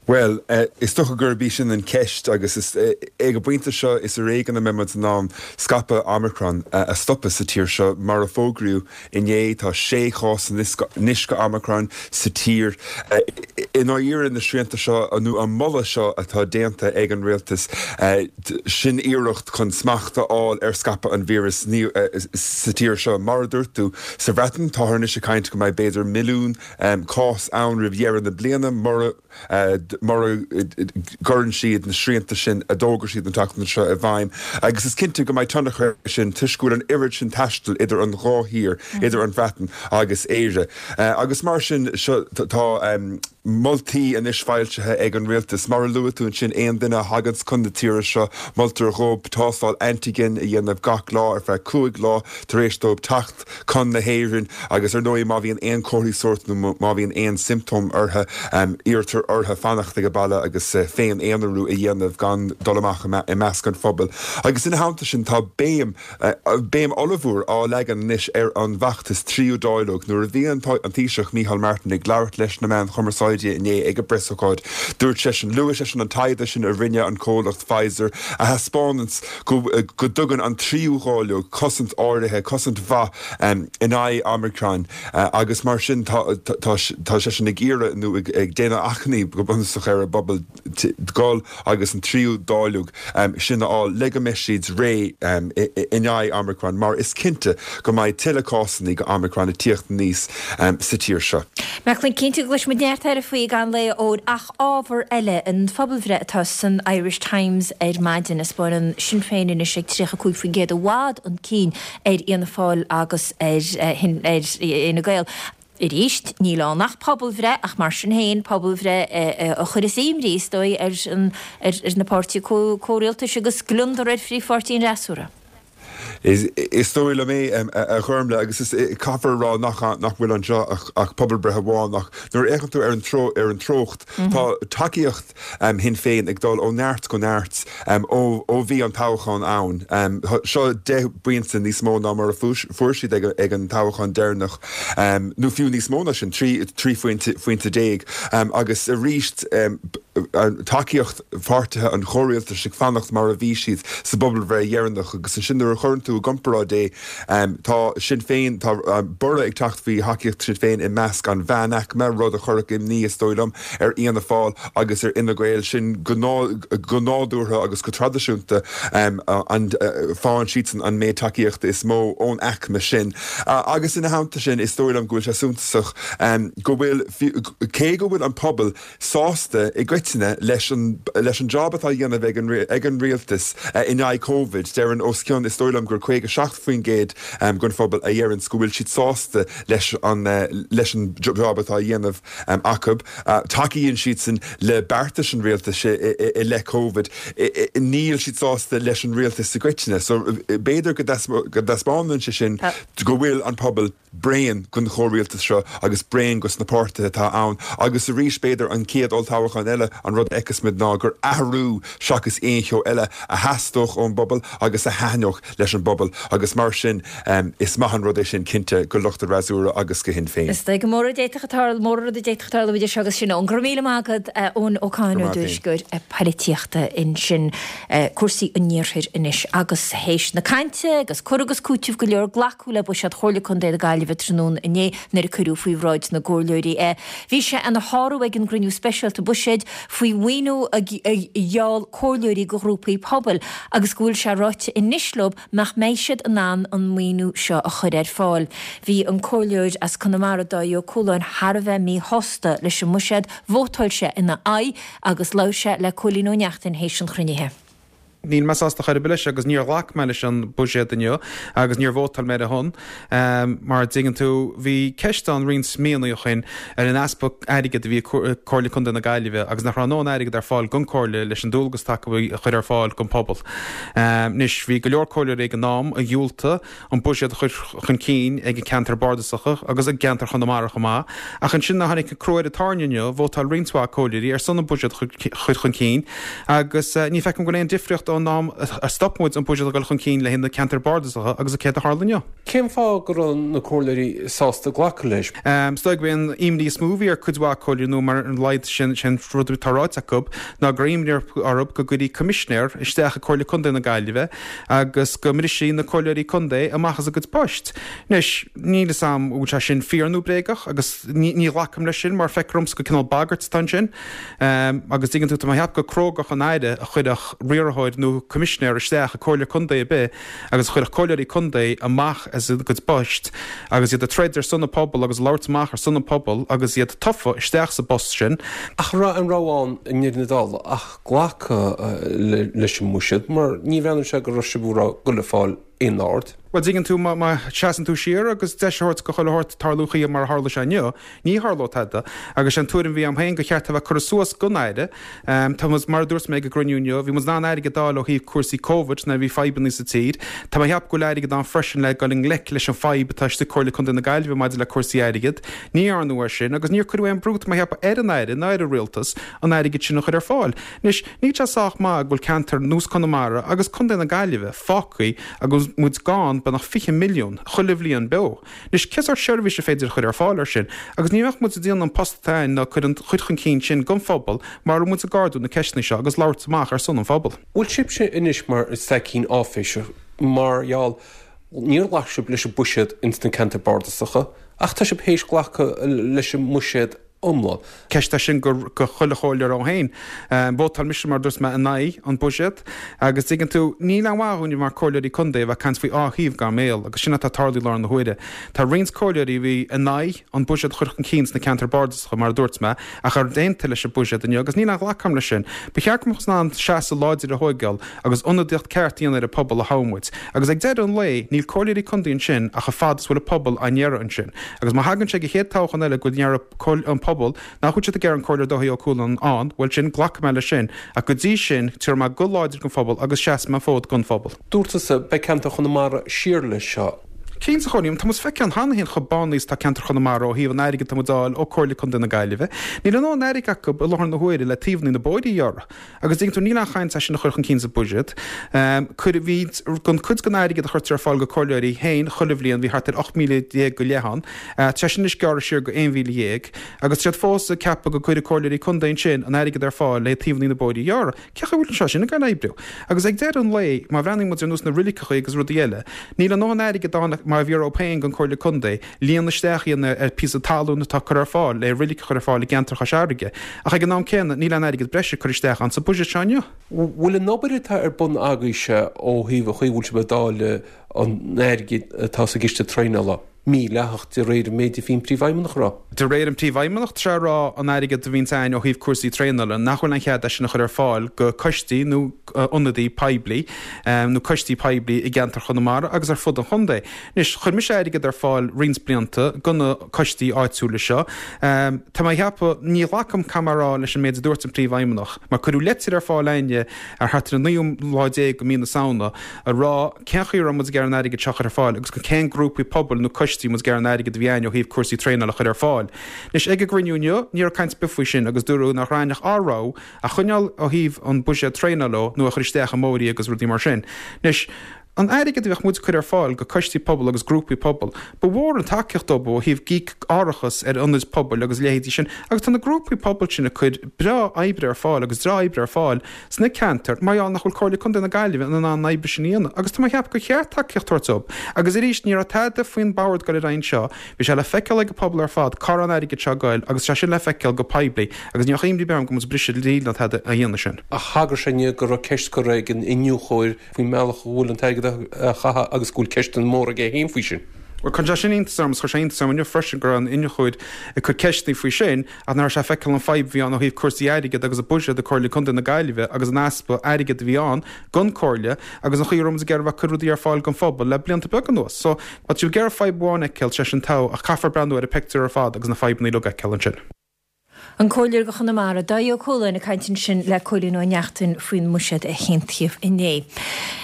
Bhuel, is dócha gurb í sin an cheist agus is ag an bpointe seo is ar éigean a mbeidh muid in ann scaipeadh Omicron a stopadh sa tír seo. Mar a fógraíodh inné, tá sé chás anois de Omicron sa tír. I ndáiríre, na srianta seo, nó an moladh seo atá déanta ag an rialtas, sin iarracht chun smacht a fháil ar scaipeadh an víris sa tír seo. Mar a dúirt tú, sa Bhreatain, táthar anois ag caint go mbeidh b'fhéidir milliún cás ann roimh dheireadh na bliana. Mura. Mura gcuireann siad na srianta sin a d'fhógair siad an tseachtain seo i bhfeidhm, agus is cinnte go mbeidh tionchar aige sin toisc go bhfuil an oiread sin taistil idir an dhá thír, idir an Bhreatain agus Éire. Agus mar sin seo tá moltaí anois foilsithe ag an rialtas. Mar a luaigh tú ansin, aon duine a thaganns chun na tíre seo, moltar dhóibh tástáil antigen a dhéanamh gach lá ar feadh 5 lá tar éis dóibh teacht chun na hÉireann agus ar ndóigh má bhíonn aon chomharthaí sóirt nó má bhíonn aon siomptóim orthu, iarrtar orthu fanacht ag baile agus féin-aonarú a dhéanamh gan dul amach i measc an phobail. Agus ina theannta sin tá béim, béim ollmhór á leagan anois ar an bhfeachtas tríú dáileog. Nuair a bhí an Taoiseach Micheál Martin ag labhairt leis na meáin chumarsáide inné ag an bpreasócáid, dúirt seisean, luaigh seisean an taighde sin a rinne an comhlacht Pfizer a thaispeánanns go dtugann an tríú dháileog cosaint áirithe, cosaint mhaith in aghaidh Omicron agus mar sin tá seisean ag iarraidh nó ag déanamh achainí go bunúsach ar an bpobal dul agus an tríú dáileog sin a fháil le go mbeidh siad réidh in aghaidh Omicron mar is cinnte go mbeidh tuilleadh cásanna de Omicron ag tíocht aníos sa tír seo. Macklin, cinnte go gcloisfidh muid neart eile faoi i gcaitheamh an lae, óir ach ábhar eile, an phobalbhreith atá san Irish Times ar maidin, a 'spáineann Sinn Féin anois ag 35% i bhfad chun cinn ar Fhianna Fáil agus ar Fhine Gael. Arís, níl ann ach pobalbhreith, ach mar sin féin, pobalbhreith a chuireas imní, is dóigh, ar na páirtithe comhrialtais agus gliondar ar phríomhpháirtí an fhreasúra. Is dóigh liom é, a Ghormlaith, agus is caithfear a rá nach nach bhfuil anseo ach pobalbhreith amháin ach nuair a fhéachann tú ar an ar an treocht, tá tacaíocht Shinn Féin ag dul ó neart go neart ó ó bhí an toghchán ann. Seo 10 bpointe níos mó ná mar a fuair siad ag an toghchán deireanach, nó fiú níos mó ná sin, 13 phointe. Agus arís tacaíocht pháirtithe an chomhrialtais ag fanacht mar a bhí siad sa bpobalbhreith dheireanach agus ansin nuair a chuireann tú i gcomparáid é, tá Sinn Féin, tá borradh ag teacht faoi thacaíocht Sinn Féin i measc an mheánaicme, rud a chuirfeadh imní, is dóigh liom, ar Fhianna Fáil agus ar Fhine Gael, sin go nádúrtha agus go traidisiúnta an faigheann siadsan an méid tacaíochta is mó ón aicme sin. Agus ina theannta sin, is dóigh liom go bhfuil sé suntasach go bhfuil, cé go bhfuil an pobal sásta i gcoitinne leis an leis an jab atá á dhéanamh ag an ag an rialtas in aghaidh Covid. Deireann os cionn, is dóigh liom gur 57% den phobal a dheireanns go bhfuil siad sásta leis an leis an jab atá á dhéanamh acu. Tacaíonn siadsan le beartais an rialtais i leith Covid. Níl siad sásta leis an rialtas i gcoitinne. So b'fhéidir go dtaispeánann sé sin go bhfuil an pobal bréan den chomhrialtas seo agus bréan dos na páirtithe atá ann agus arís b'fhéidir an chéad olltoghchán eile an rud a fheicfeas muid ná gur athrú seachas aon cheo eile a theastódh ón bpobal agus a thaitneodh leis an bpobal agus mar sin is maith an rud é sin cinnte go lucht an fhreasúra agus go Shinn Féin. Is dóigh go mórán rud a d'fhéadfadh tarlú, mórán rud a d'fhéadfadh tarlú idir seo agus sin. Eoin, go raibh míle maith agat, Eoin Ó Catháin, Go raibh maith tuairisceoir polaitíochta ansin. Cúrsaí an iarthair anois agus théis na cainte agus cur agus cúiteamh go leor glacadh le buiséad Chomhairle Contae na Gaillimhe tráthnóna inné nuair a cuireadh faoi bhráid na gcomhairleoirí é. Bhí sé ina shárú ag an gcruinniú speisialta buiséid faoi mhaoiniú a gheall comhairleoirí do ghrúpaí pobail agus go bhfuil sé ráite anois leo nach mbeidh siad in ann an maoiniú seo a chur ar fáil. Bhí an comhairleoir as Conamara Dáithí Ó Cualáin thar a bheith míshásta leis an mbuiséad, vótáil sé ina aghaidh agus labhair sé le Cóilín Ó Neachtain théis an chruinnithe. Níl mé sásta chor ar bith leis agus níor ghlac mé leis an buiséad inniu agus níor vótáil mé ar a shon. Mar a dtuigeann tú, bhí ceist ann roinnt míonna ó shin ar an easpa airgid a bhí ag Comhairle Contae na Gaillimhe agus nach raibh a ndóthain airgid ar fáil don Comhairle leis an dualgas atá acu a chur ar fáil don phobal. Anois, bhí go leor comhairleoirí ag an am a dhiúltaigh an buiséad a chur chun cinn ag an ceantar bardasacha agus i gceantar Chonamara chomh maith. Ach ansin nuair a tháinig an crú ar an tairne inniu, vótáil roinnt mhaith comhairleoirí ar son an buiséad a chur chun cinn agus ní feicim go bhfuil aon difríocht ón am a stop muid an buiséad a dhul chun cinn le haghaidh na ceantar bardasacha agus céard a tharla inniu. Cén fáth go raibh na comhairleoirí sásta glacadh leis? Is dóigh gurb é an imní is mó a bhí ar cuid mhaith comhairleoirí nó ar a laghad sin an rud atá ráite acu ná go raibh imní orthu go gcuirfí coimisinéir isteach i Comhairle Contae na Gaillimhe agus go mbrisfí na comhairleoirí contae amach as a gcuid poist. Anois, níl fhios a'm an bhfuil sé sin fíor nó bréagach agus ní ghlacaim leis sin mar feictear dhomsa gur cineál bagairt atá ansin. Agus dtuigeann tú, tá mé ag ceapadh gur crógacht an Aire a chuirfeadh riarthóir. nó coimisinéir isteach i comhairle contae ar bith agus a chuirfeadh comhairleoirí contae amach as a gcuid poist agus iad ag troid ar son an phobail agus ag labhairt amach ar son an phobail agus iad tofa isteach sa bpost sin. Ach an raibh aon rogha ann i ndeireadh na dála ach glacadh leis an mbuiséad mar ní bhreathnaíonn sé go raibh sibh ag goil ag fáil aon aird. Bhuel, dtuigeann tú, má sheasann tú siar agus deis a thabhairt go chuile shórt tarlú chuige mar a tharla sé inniu, ní tharlódh tada. Agus sé an tuairim a bhí agam féin gur cheart a bheith curtha suas gon Aire. Tá muid, mar a dúirt mé ag an gcruinniú inniu, bhí muid in ann airgead a fháil ó thaobh cúrsaí Covid nuair a bhí fadhbanna sa tír. Tá mé a cheapadh go bhfuil airgead ann freisin le dul i ngleic leis an fadhb atá istigh Comhairle Contae na Gaillimhe maidir le cúrsaí airgid. Ní dhearnadh é sin agus níor cuireadh aon brú, tá mé a cheapadh, ar an Aire ná ar an Rialtas an airgead sin a chur ar fáil. Anois, níl sé sách maith go bhfuil ceantar nós Conamara agus Contae na Gaillimhe fágtha agus muid gann beagnach 20 milliún chuile bhliain beo. Anois, cé sórt seirbhís is féidir a chur ar fáil ar sin? Agus ní bheadh muid ag déanamh an post atá againn ná cur an chuid chun cinn sin don phobal mara raibh muid ag ardú na ceisteanna seo agus labhairt amach ar son an phobail. Bhfuil sibhse anois mar staicín áiféiseach mar gheall níor ghlac sibh leis an buiséad ins na ceantair bardasacha ach tá sibh théis glacadh leis an mbuiséad iomlán. Ceist é sin go chuile chomhairleoir ann féin. Vótáil mise, mar a dúirt mé, in aghaidh an buiséad agus dtuigeann tú, níl aon mhaith dhúinne mar comhairleoirí contae a bheith ag caint faoi dhá thaobh gan béal agus sin atá ag tarlú i láthair na huaire. Tá roinnt comhairleoirí a bhí in aghaidh an buiséad a chur chun cinn sna ceantair bardasacha, mar a dúirt mé, ach ar aontaigh leis an buiséad inniu agus níl aon ghlacadh agam leis sin. Ba cheart go mbeadh in ann seasamh láidir a thóigeáil agus ionadaíocht ceart a dhéanamh ar an pobal a thogh muid. Agus ag deireadh an lae, níl comhairleoirí contae ansin ach an fad is bhfuil an pobal á n-iarraidh ansin. Agus má thagann sé go chéad toghchán eile go ndéarfaidh an pobal nach bhfuil siad ag iarraidh an Comhairleoir Dáithí Ó Cualáin ann, bhuel sin, glacfaidh mé leis sin. Ach go dtí sin, tabharfaidh mé guth láidir don phobal agus seasfaidh mé an fód don phobal. Dúirt tusa, beidh ceantar Chonamara siar leis seo. Cinnte, a Chóilín, tá muid feicthe cheana féin chomh bánaithe is atá ceantar Chonamara ó thaobh an airgid atá muid a fháil ó Comhairle Contae na Gaillimhe. Níl a ndóthain airgid acu i láthair na huaire le taobhanna na bóithre a ghearradh. Agus dtuigeann tú, níl aon chaint é sin a chur chun cinn sa bhuiséad. Cuir, bhí, don cuid den airgead a chuirtear ar fáil go comhairleoirí féin chuile bhliain, bhí thart ar 18,000 go leith ann. Tá sé sin anois gearrtha siar go 11,000. Agus tá siad fós ag ceapadh go gcuirfidh comhairleoirí contae ansin an airgead ar fáil le taobhanna na bóithre a ghearradh. Cé chaoi a bhfuil sé sin ag goil a oibriú? Agus ag deireadh an lae, má bhreathnaíonn muid ar nós na roiliceacha agus rudaí eile, níl a ndóthain airgead ann mar a bhí orthu féin don Comhairle Contae líonadh isteach a dhéanamh ar píosa talún atá curtha ar fáil le roilig a chur ar fáil i gceantar Chois Fharraige, ach ag an am céanna níl aon airgead breise curtha isteach ann sa buiséad seo inniu. Bhfuil an obair atá ar bun agaibhse ó thaobh an chaoi a bhfuil sibh ag dáileadh an airgid atá sa gciste traenála mídhleathach de réir an méid a bhí an Príomhfheidhmeannach a rá? De réir an Príomhfheidhmeannach, tá sé a rá an airgead a bhíonns a'ainn ó thaobh cúrsaí traenála, nach bhfuil aon chead é sin a chur ar fáil go coistí nó ionadaí poiblí nó coistí poiblí i gceantar Chonamara agus ar fud an chontae. Anois, chuir mise airgead ar fáil roinnt blianta go na coistí áitiúla seo. Tá mé a cheapadh, ní ghlacaim, caithfidh mé a rá, leis an méid a dúirt an Príomhfheidhmeannach, mar cuireadh leitir ar fáil a'inne ar thart ar an naoú lá déag de mhí na Samhna a rá cén chaoi a raibh muid ag iarraidh an airgead seo a chur ar fáil agus go cén grúpaí pobail nó coistí muid ag iarraidh an airgead a bhí a'ainn ó thaobh cúrsaí traenála a chur ar fáil. Anois, ag an gcruinniú inniu, ní raibh caint ar bith faoi sin agus dúradh nach raibh ach ár rogha a choinneáil ó thaobh an buiséad traenála nó a chur isteach i mbóithrí agus rudaí mar sin. Anois, An airgead a bheadh muid ag cur ar fáil go coistí pobail agus grúpaí pobail, ba mhór an tacaíocht dóibh ó thaobh ag íoc árachas ar ionaid pobail agus a leithéidí sin agus tá na grúpaí pobail sin ag cur breá oibre ar fáil agus breá oibre ar fáil sna ceantair mar gheall nach bhfuil Comhairle Contae na Gaillimhe in ann an oibre sin a dhéanamh agus tá mé ag ceapadh gur cheart tacaíocht a thabhairt dóibh. Agus arís, ní raibh tada faoin bord ag dul ar aghaidh anseo, bhí sé le feiceáil ag an pobal ar fad cá raibh an airgead seo ag goil agus tá sé sin le feiceáil go poiblí agus ní bheadh imní ar bith orm go bhfuil muid ag briseadh dlí ná tada á dhéanamh sin. Ach thagair sé inniu go raibh ceist curtha ag an iniúchóir faoin mbealach a bhfuil an t-airgead á chaitheamh agus go bhfuil ceisteanna móra aige féin faoi sin. Bhuel, cuireann sé sin iontas orm, agus chuir sé iontas orm inniu freisin go raibh an iniúchóir ag cur ceisteanna faoi sin, ach nach raibh sé ag feiceáil an fadhb a bhí ann ó thaobh cúrsaí airgid agus an buiséad ag Comhairle Contae na Gaillimhe agus an easpa airgid a bhí ann don Comhairle agus an chaoi a raibh muid ag iarraidh a bheith ag cur rudaí ar fáil don phobal le blianta beaga anuas. So, má tá sibh ag iarraidh fadhb amháin a fheiceáil, sé sin togha, ach caithfear breathnú ar an pictiúr ar fad agus na fadhbanna uilig a fheiceáil ansin. An Comhairleoir do Chonamara, Dáithí Ó Cualáin ag caint ansin le Cóilín Ó Neachtain faoin mbuiséad a haontaíodh inné.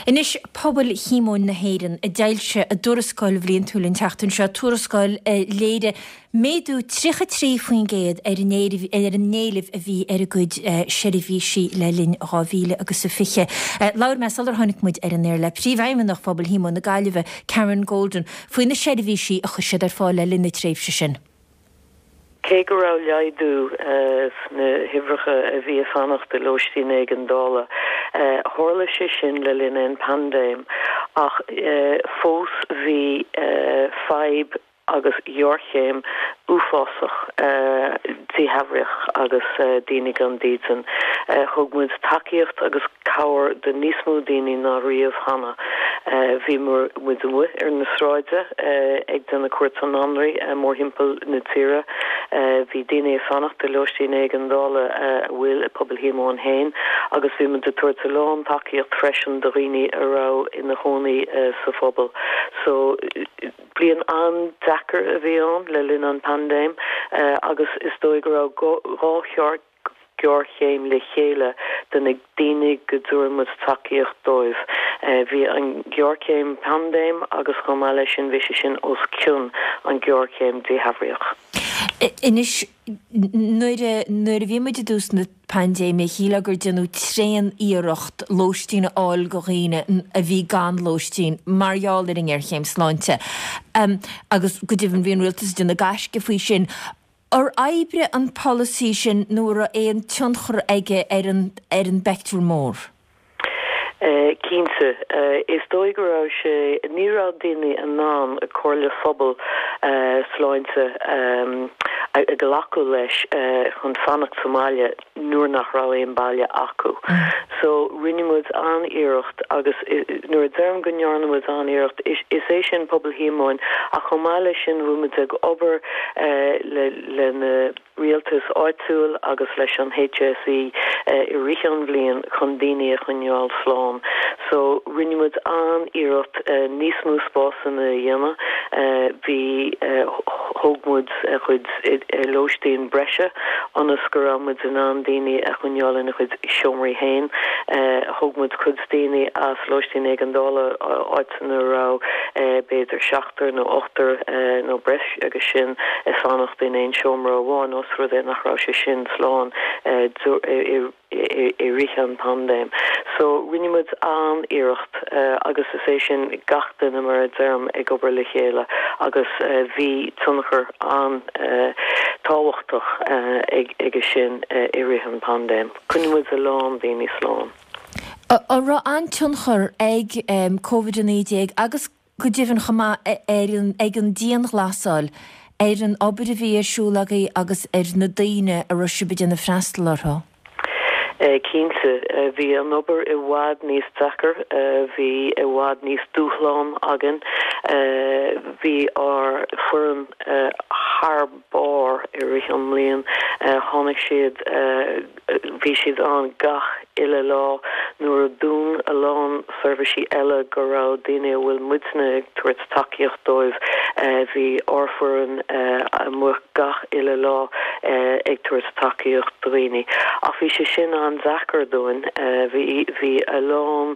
Anois Pobal Shíomóin na hÉireann a d'fhoilsigh a dtuarascáil bhliantúil an tseachtain seo, tuarascáil a léirigh méadú 33% ar an éileamh a bhí ar a gcuid seirbhísí le linn 2020. Labhair mé sular tháinig muid ar an aer le Príomhfheidhmeannach Phobal Shíomóin na Gaillimhe, Karen Golden, faoi na seirbhísí a chuir siad ar fáil le linn na tréimhse sin. Cé go raibh laghdú sna huimhreacha a bhí ag fanacht i lóistín éigeandála, tharla sé sin le linn an paindéim, ach fós bhí fadhb. agus ghéarchéim uafásach díshealbhaíoch agus daoine gan dídean. Thug muid tacaíocht agus cabhair do níos mó daoine ná riamh cheana. Bhí muid amuigh ar na sráide ag déanamh cuairt anraí mórthimpeall na tíre. Bhí daoine ag fanacht i lóistín éigeandála a bhfuil i Pobal Shíomóin féin agus bhí muid ag tabhairt a lán tacaíocht freisin do dhaoine a raibh ina chónaí sa phobal. So. Bliain an-deacair a bhí ann le linn an paindéim agus is dóigh go raibh 2 ghéarchéim le chéile do na daoine go dtabharann muid tacaíocht dóibh. Bhí an ghéarchéim paindéim agus chomh maith leis sin bhí sé sin os cionn an ghéarchéim díshealbhaíoch. Anois, nuair a, nuair a bhí muid i dtús na paindéime, shílfeá gur déanadh tréan-iarracht lóistín a fháil go dhaoine a bhí gan lóistín mar gheall ar an ngéarchéim sláinte. Agus go deimhin bhí an rialtas ag déanamh gaisce faoi sin. Ar oibrigh an polasaí sin nó an raibh aon tionchar aige ar an, ar an bpeictiúr mór? Cinnte. Is dóigh go raibh sé, ní raibh daoine in ann comhairle phobal sláinte a ghlacadh leis chun fanacht sa mbaile nuair nach raibh aon baile acu. So rinne muid an-iarracht agus nuair a deirim go ndearna muid an-iarracht, is é sin Pobal Shíomóin ach chomh maith leis sin bhí muid ag obair le na rialtas áitiúil agus leis an HSE i rith an bhliain chun daoine a choinneáil slán. So rinne muid an-iarracht níos mó spásanna a dhéanamh. Bhí, thóg muid cuid lóistín breise ionas go raibh muid in ann daoine a choinneáil ina gcuid seomraí féin. Thóg muid cuid daoine as lóistín éigeandála, áiteanna a raibh b'fhéidir seachtar nó ochtar nó breis agus sin ag fanacht in aon seomra amháin ós rud é nach raibh sé sin slán i rith an paindéim. So rinne muid an-iarracht agus is é sin gach duine mar a deirim ag obair le chéile agus bhí tionchar an-tábhachtach aige sin i rith an paindéim. Choinnigh muid a lán daoine slán. An raibh an-tionchar ag Covid-19 agus go deimhin chomh maith ar an, ag an dianghlasáil ar an obair a bhí ar siúl agaibh agus ar na daoine a raibh sibh ag déanamh freastal orthu? Cinnte. Bhí an obair i bhfad níos deacair, bhí i bhfad níos dúshlán againn. Bhí ár foireann thar barr i rith an mbliain. Tháinig siad, bhí siad ann gach uile lá nuair a dún a lán seirbhísí eile go raibh daoine a bhfuil muidne ag tabhairt tacaíocht dóibh, bhí ár bhfoireann amuigh gach uile lá ag tabhairt tacaíocht do dhaoine. Ach bhí sé sin an-deacair dúinn. Bhí, bhí a lán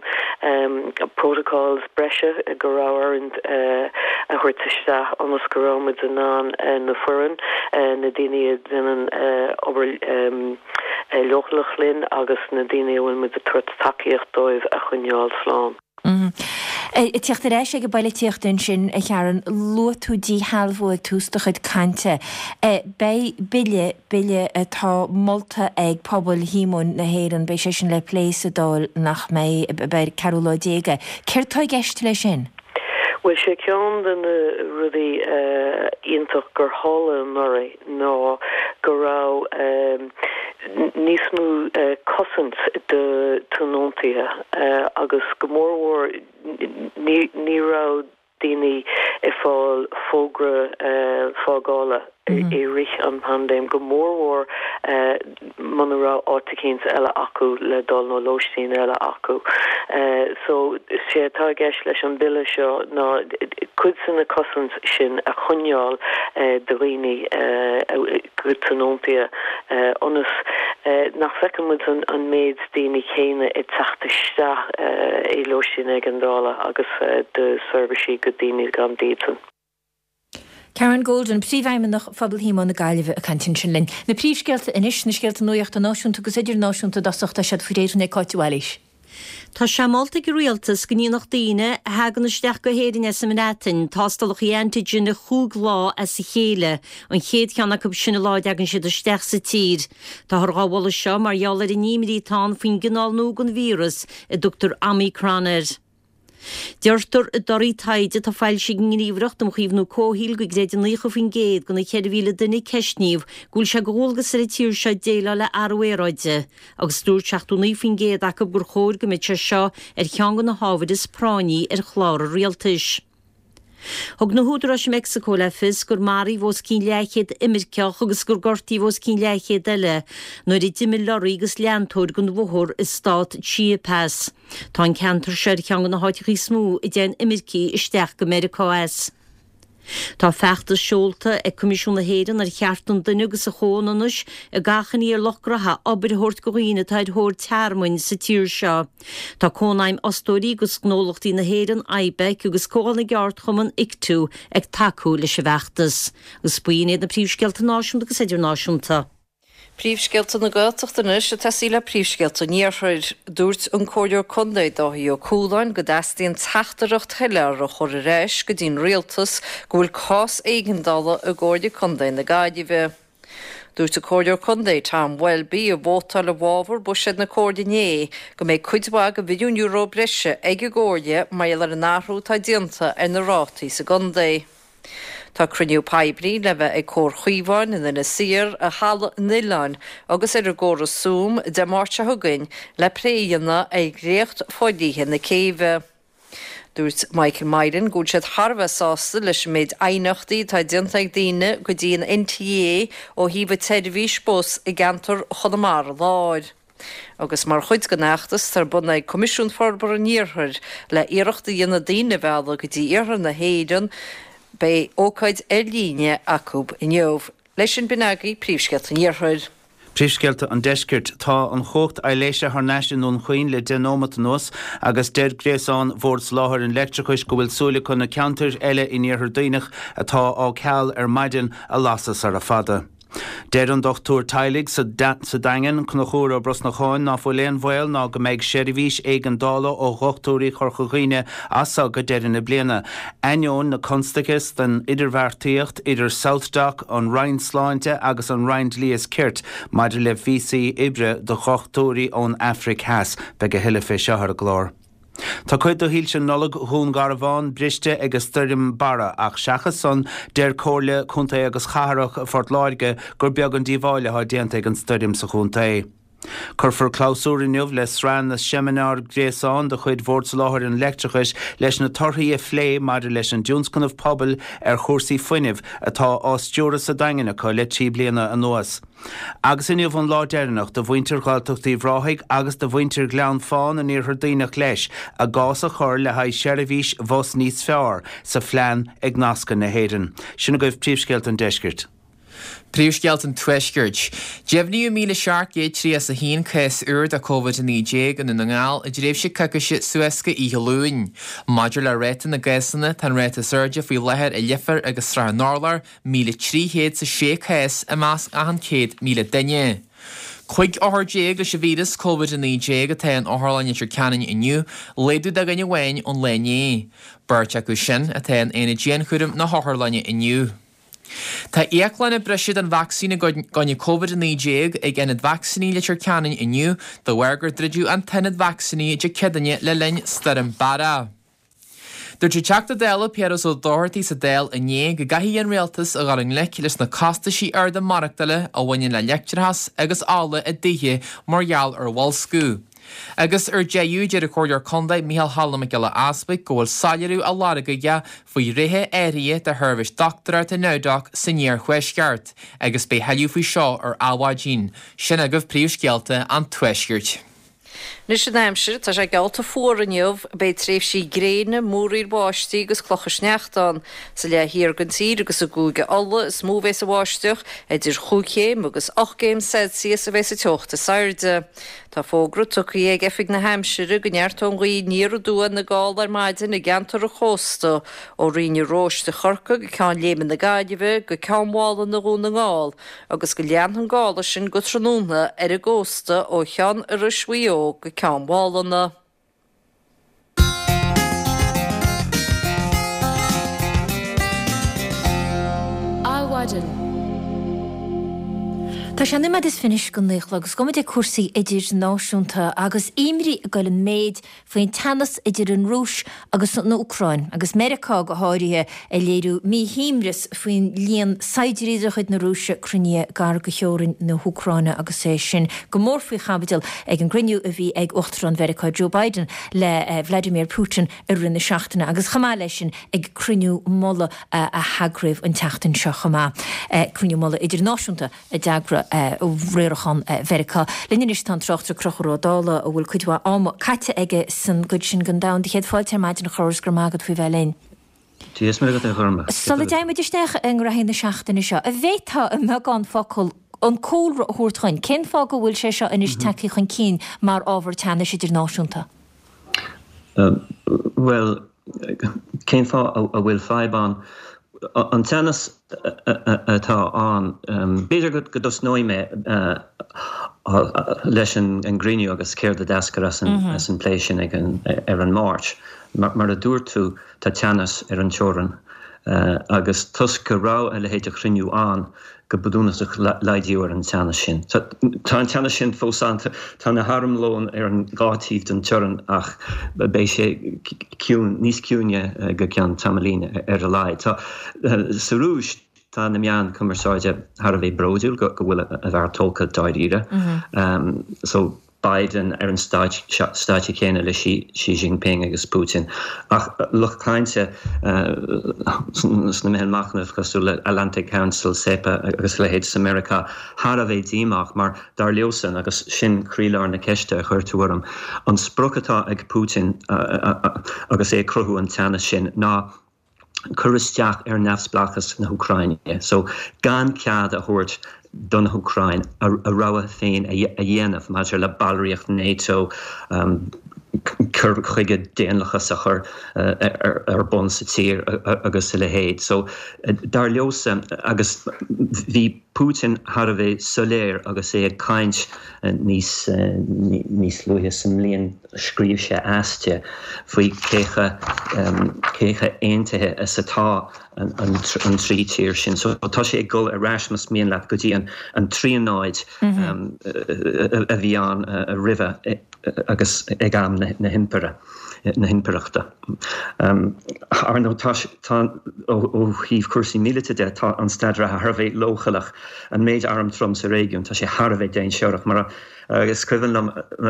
protocols breise go raibh orainn a thabhairt isteach ionas go raibh muid in ann na foireann, na daoine a dhéanann obair leochaileach linn agus na daoine a bhfuil muid ag tabhairt tacaíocht dóibh a choinneáil slán. Ag teacht ar ais ag an bpoilitíocht ansin, a Sharon, luaigh tú díshealbhú ag tús do chuid cainte. Beidh bille, bille atá molta ag Pobal Shíomóin na hÉireann, beidh sé sin le plé sa Dáil nach mbeidh, beidh ceathrú lá déag é. Céard tá i gceist leis sin? Bhuel, sé ceann de na rudaí iontach gur tharla anuraidh ná go raibh níos mó cosaint do tionóntaithe agus go mórmhór ní raibh daoine ag fáil fógra fágála i rith an paindéim, go mórmhór muna raibh áit eicínt eile acu le dul nó lóistín eile acu. So, sé atá i gceist leis an bille seo ná cuid de na cosaint sin a choinneáil do dhaoine, do tionóntaithe, ionas nach bhfeiceann muid an méid daoine céanna ag teacht isteach i lóistín éigeandála agus do seirbhísí do daoine gan dídean. Karen Golden, Príomhfheidhmeannach Phobal Shíomóin na Gaillimhe ag caint ansin linn. Na príomhscéalta anois, na scéalta nuachta náisiúnta agus idirnáisiúnta i dtosach, tá siad faoi réir ag Cáit de Bhailís. Tá sé molta ag an Rialtas go ndéanfadh daoine a thagann isteach go hÉirinn as an mBreatain tástálacha antigen chúig lá as a chéile, an chéad cheann acu sin an lá a dtagann siad isteach sa tír. Táthar dhá mholadh seo mar gheall ar an imní atá ann faoin gcineál nua den víreas a dtugtar Omicron air. Deirtear i dtorthaí taighde atá foilsithe ag an nGníomhaireacht um Chaomhnú Comhshaoil go gcreideann 90% de na 4,000 duine a ceistníodh go bhfuil sé de dhualgas ar an tír seo déileáil le athrú aeráide agus dúirt 79% acu gur chóir go mbeadh sé seo ar cheann de na hábhair is práinní ar chlár an rialtais. Thug na húdaráis i Meicsiceo le fios gur maraíodh os cionn leathchéad imirceach agus gur gortaíodh os cionn leathchéad eile nuair a d'imigh lorraí agus leantóir den bhóthar i stát Chiapas. Tá an ceantar seo ar cheann de na háiteacha is mó a dtéann imircigh isteach go Meiriceá as. Tá feachtas seolta ag Coimisiún na hÉireann ar Chearta an Duine agus an Chomhionannais ag achainí ar lucht gnoithe obair a thabhairt do dhaoine atá ar thóir tearmainn sa tír seo. Tá Cónaidhm Fhostóirí agus Ghnólachtaí na hÉireann, IBEC, agus Comhdháil na gCeardchumann, ICTU, ag tacú leis an bhfeachtas. Agus b'in iad na príomhscéalta náisiúnta agus idirnáisiúnta. Príomhscéalta na Gaeltachta anois ag tosaí le príomhscéalta an Iarthair. Dúirt an Comhairleoir Contae Dáithí Ó Cualáin go dteastaíonn teachtaireacht shoiléir a chur ar ais go dtí'n Rialtas go bhfuil cás éigeandála i gComhairle Contae na Gaillimhe. Dúirt an Comhairleoir Contae Tom Welby, a vótáil i bhfabhar buiséad na Comhairle inné, go mbeidh cuid mhaith de mhilliún euro breise ag an gComhairle mar gheall ar an athrú atá déanta ar na rátaí sa gcontae. Tá cruinniú poiblí le bheith ag Comhar Chaomháin in Inis Oírr, i Halla an Oileáin agus ar an gcóras Zoom Dé Máirt seo chugainn le plé a dhéanamh ar dhréacht fodhlíthe na céibhe. Dúirt Michael Myron go bhfuil siad thar a bheith sásta leis an méid aighneachtaí atá déanta ag daoine go dtí an NTA ó thaobh an tseirbhís bus i gceantar Chonamara Láir. Agus mar chuid den fheachtas atá ar bun ag Coimisiún Forbartha an Iarthair le iarracht a dhéanamh daoine a mhealladh go dtí iarthar na hÉireann, beidh ócáid ar líne acu inniu. Leis sin, b'in agaibh príomhscéalta an Iarthair. Príomhscéalta an Deiscirt. Tá an chumhacht aibhléise thar n-ais i nDún Chaoin le 10 nóimeat anuas agus deir gréasán Bhord Soláthair an Leictreachais go bhfuil súil acu na ceantair eile in Iarthar Duibhneach atá á ceal ar maidin a lasadh sara fada. Deir an dochtúir teaghlaigh sa Daingean, Conchúr Ó Brosnacháin, ná fuil aon bhaol ná go mbeidh seirbhís éigeandála ó dhochtúirí Chorca Dhuibhne as seo go deireadh na bliana. Ainneoin na constaice den idirbheartaíocht idir SouthDoc, an Roinn Sláinte agus an Roinn Dlí is Cirt maidir le víosaí oibre do dhochtúirí ón Afraic Theas. Beidh a thuilleadh fé seo ar an gclár. Tá cuid de shoilse Nollag Dhún Garbhán briste ag an stoirm Barra ach seachas san, deir Comhairle Contae agus Cathrach Phort Láirge gur beag an díobháil atá déanta ag an stoirm sa chontae. Cuirfear clabhsúr inniu le sraith na seimineár gréasáin de chuid Bhord Soláthair an Leictreachais leis na torthaí a phlé maidir leis an dtionscnamh pobail ar chúrsaí fuinnimh atá á stiúradh sa Daingean acu le 3 bliana anuas. Agus inniu an lá deireanach do mhuintir Ghaeltacht Uíbh Ráthaigh agus do mhuintir Ghleann Fáin in Iarthar Duibhneach leis a gcás a chur le haghaidh seirbhís bhus níos fearr sa phlean Ag Nascadh na hÉireann. Sin agaibh príomhscéalta an deiscirt. Príomhscéalta an Tuaiscirt. Deimhníodh 1,731 cás úr de Covid-19 i nDún na nGall i dtréimhse coicíse suas go oíche Luain. Maidir le ráta na gcásanna, tá an ráta is airde faoi láthair i Leifear agus Srath an Urláir, 1,306 cás i measc achan 100,000 duine. 15 othar leis an víreas Covid-19 atá in Otharlann Leitir Ceanainn inniu, laghdú de dhuine amháin ón lá inné. Beirt acu sin atá in aonad dianchúraim na hotharlainne inniu. Tá íoclanna breise den vacsaín i gcoinne Covid-19 ag Ionad Vacsaíní Leitir Ceanainn inniu de bharr gur druideadh an t-ionad vacsaíní Dé Céadaoine le linn Stoirm Barra. Dúirt an Teachta Dála Piaras Ó Dochartaigh sa Dáil inné go gcaithfidh an Rialtas a dhul i ngleic leis na costaisí arda maireachtála a bhaineann le leictreachas agus ola i dtithe mar gheall ar bhoilsciú. Agus ar deireadh, deir an Comhairleoir Contae Micheál Choilm Mac Giolla Easbuig go bhfuil soiléiriú á lorg aige faoi thréithe áirithe de sheirbhís dochtúireachta NowDoc san iarthuaisceart agus beidh thuilleadh faoi seo ar Adhmhaidin. Sin agaibh príomhscéalta an Tuaiscirt. Anois an aimsir, tá sé geallta fuar inniu. Beidh tréimhsí gréine, múraíl bháistí agus clocha sneachta ann. Sa leath thiar den tír agus i gCúige Uladh is mó a bheas an bháisteach, idir chúig chéim agus ocht gcéim Celsius a bheas an teocht is airde. Tá fógra tugtha ag Oifig na hAimsire go neartóidh an ghaoth aniar aduaidh na gála ar maidin i gceantar an chósta, ó Rinn an Róis do Chorcaigh go Ceann Léime na Gaillimhe go Ceann Mhálanna Dhún na nGall, agus go leanfaidh an gála sin go tráthnóna ar an gcósta ó Cheann Iorrais Mhaigh Eo go Ceann Mhálanna. Adhmhaidin. Tá sé nóiméad is fiche anois go naoi a chlog agus gabhfaidh muid ag cúrsaí idirnáisiúnta agus imní ag dul in méid faoin teannas idir an Rúis agus an Úcráin, agus Meiriceá go háirithe ag léiriú míshuaimhneas faoin líon saighdiúirí de chuid na Rúise cruinnithe gar do theorainn na hÚcráine agus é sin go mór faoi chaibidil ag an gcruinniú a bhí ag Uachtarán Mheiriceá Joe Biden le Vladimir Putin i rith na seachtaine agus chomh maith leis sin ag cruinniú mullaigh a heagraíodh an tseachtain seo chomh maith, cruinniú mullaigh idirnáisiúnta a d'eagraigh riarachán Mheiriceá. Linn anois tá an tráchtaire Conchúr Ó Dálaigh a bhfuil cuid mhaith ama caite aige san gcuid sin den domhan. Do chéad fáilte ar maidin a Chonchúir is go raibh maith agat faoi bheith linn. Dia is Muire agat a Ghormlaith. Sula dtéann muid isteach i ngraithí na seachtaine seo, an bhféadfá i mbeagán focal an cúlra a thabhairt dhuinn? Cén fáth go bhfuil sé seo anois tagtha chun cinn mar ábhar teannais idirnáisiúnta? Bhuel, cén fáth a bhfuil fadhb ann? An teannas atá ann, b'fhéidir go dtosnóidh mé leis an gcruinniú agus céard a d'eascair as an bplé sin ar an Máirt. Mar a dúirt tú, tá teannas ar an teorainn agus toisc go raibh a leithéid de chruinniú ann, go bunúsach laghdaíodh ar an teannas sin. Tá an teannas sin fós ann, tá na harmlóin ar an dhá taobh den teorainn ach beidh sé ciúin, níos ciúine go ceann tamaillín ar a laghad. Tá, sa Rúis, tá na meáin cumarsáide thar a bheith bródúil go bhfuil a bhfear tógtha dáiríre. So. Biden ar an stáitse céanna le Xi Jinping agus Putin. Ach lucht cainte sna meithil machnaimh cosúil le Atlantic Council, SEPA agus a leithéid sa Meiriceá thar a bheith díomách mar dar leosan, agus sin croílár na ceiste a chuir tú orm, an sprioc atá ag Putin agus é ag cruthú an teannas sin ná cur isteach ar neamhspleáchas na hÚcráine. So, gan cead a thabhairt don Úcráin a rogha féin a dhéanamh maidir le ballraíocht NATO, cur chuige daonlathas a chur ar bun sa tír agus a leithéid. So, dar leosan, agus bhí Putin thar a bheith soiléir agus é ag caint níos níos luaithe sa mbliain, Scríobh sé aiste faoi cé chomh aontaithe is atá an trí tír sin. So tá sé ag dul ar ais, más mian leat, go dtí an tríonóid a bhí ann roimhe agus ag am na himpire, na himpireachta. Ar ndóigh, tá, tá, ó thaobh cúrsaí míleata de, tá an staid reatha thar a bheith leochaileach. An méid arm trom sa réigiún, tá sé thar a bheith dainséarach. Mar a. Is cuimhin liom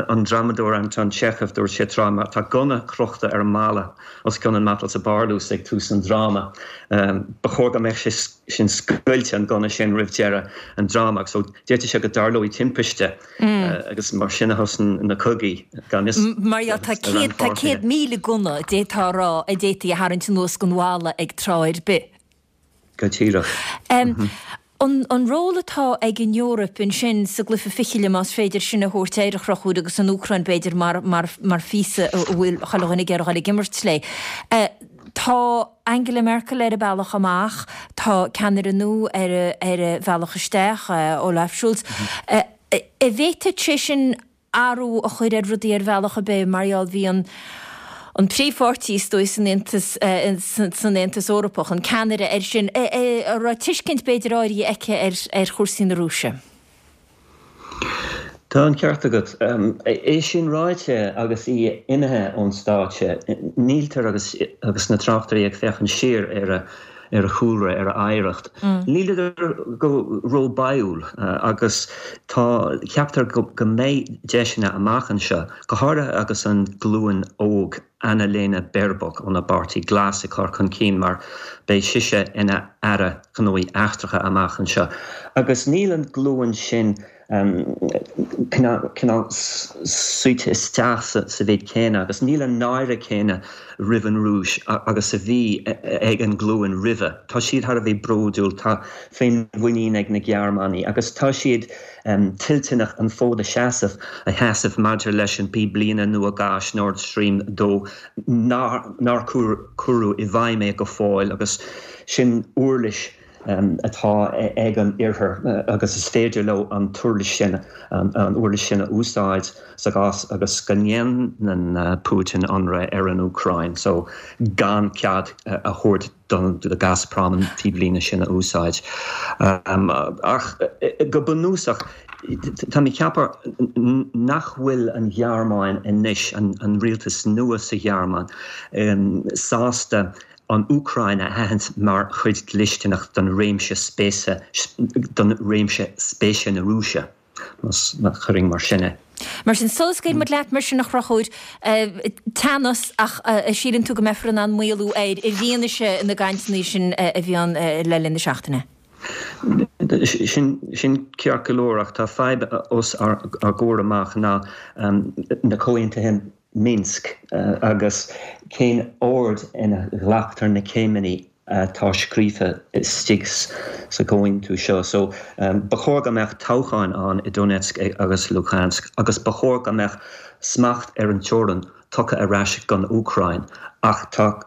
an drámadóir Anton Chekhov, dúirt sé tráth, má tá gunna crochta ar an mballa os cionn an matail sa bparlús ag tús an dráma, ba chóir go mbeadh sé sin scoilte, an gunna sin, roimh deireadh an dráma. So d'fhéadfadh sé go dtarlóidh timpiste agus mar sin a thosaíonn na cogaí, gan fhios Mar dhea, tá 100,000 gunna, d'fhéadfá a rá, a d'fhéadfaí a tharraingt anuas den bhalla ag tráth ar bith. Go díreach. An ról atá ag an Eoraip ansin sa gcluiche fichille, más féidir sin a thabhairt air, a Chonchúir, agus an Úcráin, b'fhéidir, mar mar phíosa a bhfuil chuile dhuine ag iarraidh a dhul ag imirt léi. Tá Angela Merkel ar a bealach amach, tá ceannaire nua ar ar a bhealach isteach, Olaf Scholz. An bhféadfadh sé sin athrú a chur ar rudaí ar bhealach ar bith mar gheall bhí an an príomhpháirtí is dóigh san Aontas san Aontas Eorpach, an ceannaire air sin, a raibh tuiscint b'fhéidir áirithe aici ar ar chúrsaí na Rúise. Tá an ceart agat. É sin ráite agus í imithe ón stáitse, níltear agus agus na tráchtairí ag féachaint siar ar a ar a chúlra, ar a oidhreacht. Níleadar go ró-báúil agus tá, ceaptar go mbeidh deiseanna amach anseo, go háirithe agus an ghlúin óg, Annalena Baerbock óna bPáirtí Glas ag cur chun cinn mar beidh sise ina Aire Gnóthaí Eachtracha amach anseo. Agus níl an ghlúin sin cineál suite isteach sa mhéid céanna agus níl an náire céanna roimh an Rúis agus a bhí ag an nglúin roimhe. Tá siad thar a bheith bródúil, tá féinmhuinín ag na Gearmánaigh agus tá siad toilteanach an fód a sheasamh, a sheasamh maidir leis an bpíblíne nua gáis Nord Stream 2 nár cuireadh i bhfeidhm é go fóill agus sin uirlis. atá ag an Oirthear agus is féidir leo an t-uirlis sin, an uirlis sin a úsáid sa gcás agus go ndéanann Putin ionradh ar an Úcráin so gan cead a thabhairt do Gazprom an píblíne sin a úsáid. Ach go bunúsach, tá mé ag ceapadh nach bhfuil an Ghearmáin anois, an rialtas nua sa Ghearmáin, sásta an Úcráin a aithint mar chuid dlisteanach don réimse spéise, don réimse spéise na Rúise, má chuirfinn mar sin é. Mar sin, sula scaoilfidh muid leat mar sin, a Chonchúir, teannas, ach síleann tú go mbeifear in ann maolú air i bhfianaise na gcainteanna sin a bhí ann le linn na seachtaine? Sin ceart go leor, ach tá fadhb os ár gcomhair amach ná na comhaontuithe Minsk agus cén ord ina ghlactar na céimeanna atá scríofa istigh sa gcomhaontú seo. So, ba chóir go mbeadh toghcháin ann i Donetsk agus Luhansk agus ba chóir go mbeadh smacht ar an teorainn tugtha ar ais don Úcráin ach tá,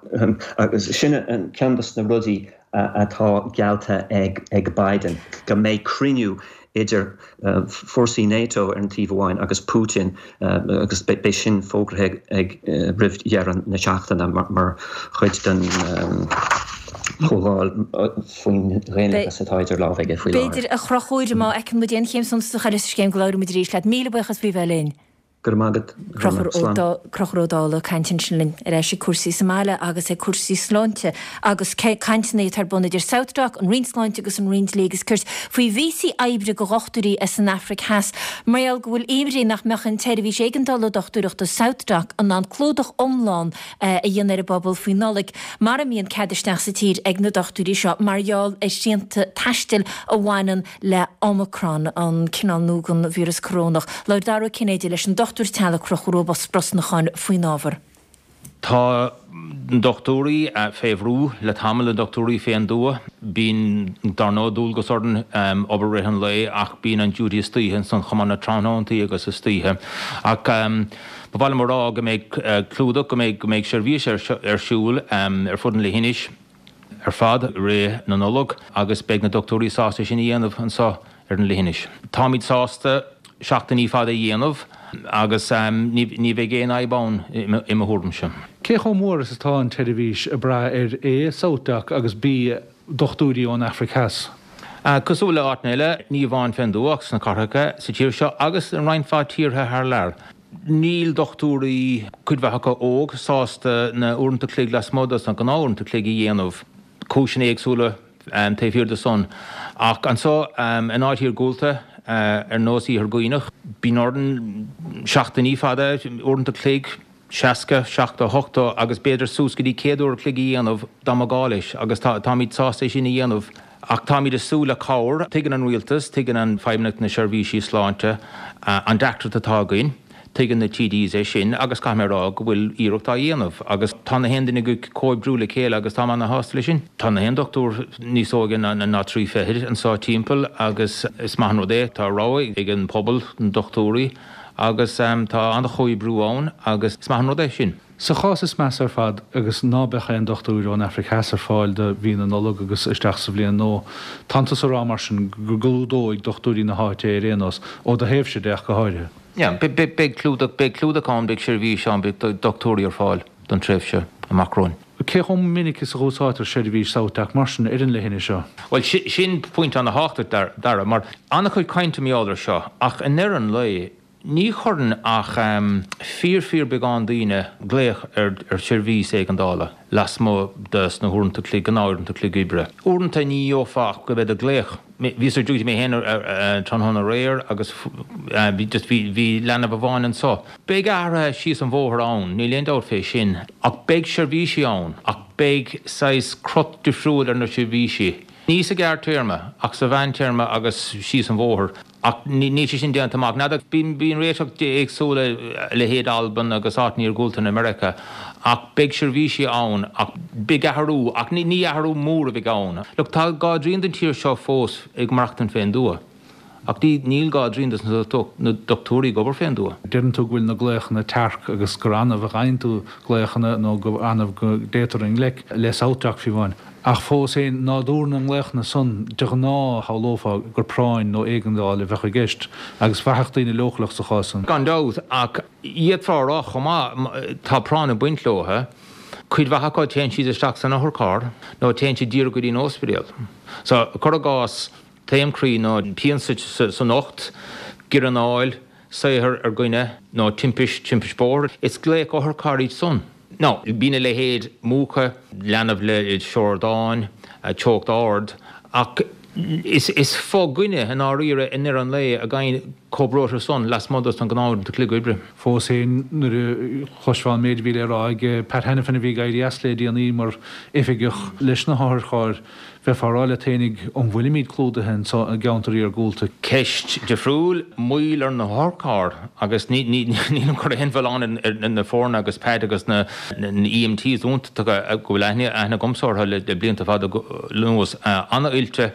agus sin ceann dos na rudaí atá geallta ag Biden, go mbeidh cruinniú idir fórsaí NATO ar an taobh amháin agus Putin agus beidh sin fógraithe ag roimh dheireadh na seachtaine mar chuid den chomhdháil faoin dhaonlathas atá idir lámha aige faoi láthair. B'fhéidir, a Chonchúir, má fheiceann muid aon chéim suntasach eile sa scéim go labhróidh muid arís leat. Míle buíochas faoi bheith linn. Go raibh maith agat. Slán. Conchúr Ó Dálaigh ag caint ansin linn ar ais ag cúrsaí sa mbaile agus ag cúrsaí sláinte agus cainteanna atá ar bun idir SouthDoc, an Roinn Sláinte agus an Roinn Dlí agus Cirt faoi víosaí oibre do dhochtúirí as an Afraic Theas mar gheall go bhfuil imní nach mbeadh an tseirbhís éigeandála dochtúireachta SouthDoc in ann clúdach iomlán a dhéanamh ar an bpobal faoi Nollaig mara mbíonn cead isteach sa tír ag na dochtúirí seo mar gheall ar shrianta taistil a bhaineann le Omicron, an cineál nua den víreas corónach. Labhair Dara Ó Cinnéide leis an dochtúir teaghlaigh Conchúr Ó Brosnacháin faoin ábhar. Tá na dochtúirí fé bhrú le tamall, na dochtúirí fén dtuath. Bíonn, dar ndóigh, dualgas orainn obair rith an lae ach bíonn an duty istoíche ansan chomh maith, na tráthnóntaí agus istoíche. Ach ba mhaith liom a rá go mbeidh clúdach, go mbeidh, go mbeidh seirbhís ar siúl ar fud an leithinis. ar fad i rith na Nollag agus beidh na dochtúirí sásta sin a dhéanamh anseo ar an leithinis. Táimid sásta seachtainí fada a dhéanamh agus ní bheidh aon fhadhb ann i mo thuairimse. Cé chomh mór is atá an tseirbhís ag brath ar A, SouthDoc agus B, dochtúirí ón Afraic Theas? Cosúil le áiteanna eile, ní amháin fén dtuath ach sna cathracha sa tír seo agus i roinnt mhaith tíortha thar lear. Níl dochtúirí, cuid mhaith acu óg, sásta na uaireanta cloig lasmuigh dos na gnáth-uaireanta cloig a dhéanamh. Cúiseanna éagsúla taobh thiar de san. Ach anso in áit iargúlta ar nós Iarthar Dhuibhneach, bíonn orainn seachtainí fada, uaireanta cloig, 60, 70, 80 agus b'fhéidir suas go dtí 100 uair a chloig a dhéanamh dá mba gá leis agus táimid sásta é sin a dhéanamh. Ach táimid ag súil le cabhair. Tuigeann an Rialtas, tuigeann an Feidhmeannacht na Seirbhísí Sláinte an deacracht atá againn. Tuigeann na TDs é sin agus caithfidh mé a rá go bhfuil iarracht á dhéanamh agus tá na haon duine ag comhoibriú le chéile agus táim ana-shásta leis sin. Tá na haon dochtúir níos óige ná trí fichid anseo timpeall agus is maith an rud é. Tá rogha ag an pobal, na dochtúirí agus tá an-chomhoibriú ann agus is maith an rud é sin. Sa chás is measa ar fad, agus ná beadh aon dochtúir ón Afraic Theas ar fáil do mhí na Nollag agus isteach sa bhliain nua, tánn tusa a rá mar sin go gclúdóidh dochtúirí na háite é ar aon nós, ó do thaobhse de ach go háirithe? Yeah, beidh clúdach, beidh clúdach ann, beidh seirbhís ann, beidh dochtúirí ar fáil don tréimhse amach romhainn. Cé chomh minic is a dh'úsáidtear seirbhís SouthDoc mar sin ar an leithinis seo? Bhuel, sin pointe ana-thábhachtach, Dara, mar an-chuid cainte mar gheall air seo, ach i ndeireadh an lae, Ní chuireann ach fíor fíor beagán daoine glaoch ar sheirbhís éigeandála lasmuigh de sna huaireanta cloig, gnáth-uaireanta cloig oibre. Uaireanta ní gheofá ach go bheith ag glaoch. Bhíos ar duty mé féin tráthnóna aréir agus bhí just bhí bhí leanbh amháin anso. Beidh athruithe síos an bhóthar ann, níl aon dabht fé sin, ach beidh seirbhísí ann ach beidh saghas crot difriúil ar na seirbhísí. Ní sa ghearrtéarma ach sa mheántéarma agus síos an bhóthar. Ach níl sé sin déanta amach. N'fheadar, bíonn réiteach éagsúla, a leithéid Albain agus áiteanna iargúlta in America, ach beidh seirbhísí ann, ach beidh athrú, ach ní athrú mór a bheidh ann. Look, tá dhá dtrian den tír seo fós ag maireachtaint fén dtuath. Ach níl dhá dtrian dos na dochtúirí ag obair fén dtuath. Deireann tú go bhfuil na glaochanna tearc agus gur annamh a fhaigheann tú glaochanna nó gur annamh go dtéitear i ngleic le SouthDoc fiú amháin. Ach fós féin, nádúr na nglaochanna san, de ghnáth shamhlófá gur práinn nó éigeandáil a bheadh i gceist agus bheadh daoine leochaileach sa chás san. Gan dabht, ach d'fhéadfá a rá chomh maith, tá práinn ag baint leo. Cuid mhaith acu téann siad isteach san otharcharr nó téann siad díreach go dtí an ospidéal. So, cuir i gcás, Taom croí nó pian san ucht, giorranáil, saothar ar dhuine nó timpist, timpist bóthair. Is glaoch otharchairr iad san. Now, bíonn a leithéid múchadh, leanbh le siordáin, teocht ard, ach is fo-dhuine i ndáiríre i ndeireadh an lae a gheibheann chomh breoite san lasmuigh dos na gnáth-uaireanta cloig oibre. Fós féin, nuair a chloisfeá an méid a bhí le rá ag Pat Hanafin a bhí ag éirí as le déanaí mar oifigeach leis na hotharchairr, Bheifeá ag rá leat fhéinig, an bhfuilimid clúdaithe anso i gceantar iargúlta? Ceist difriúil, moill ar na hotharchairr agus nílim ag cur aon mhilleán ar na foirne agus Pat agus na EMTs iontacha go bhfuil aithne agamsa orthu le blianta fada anuas, an-oilte,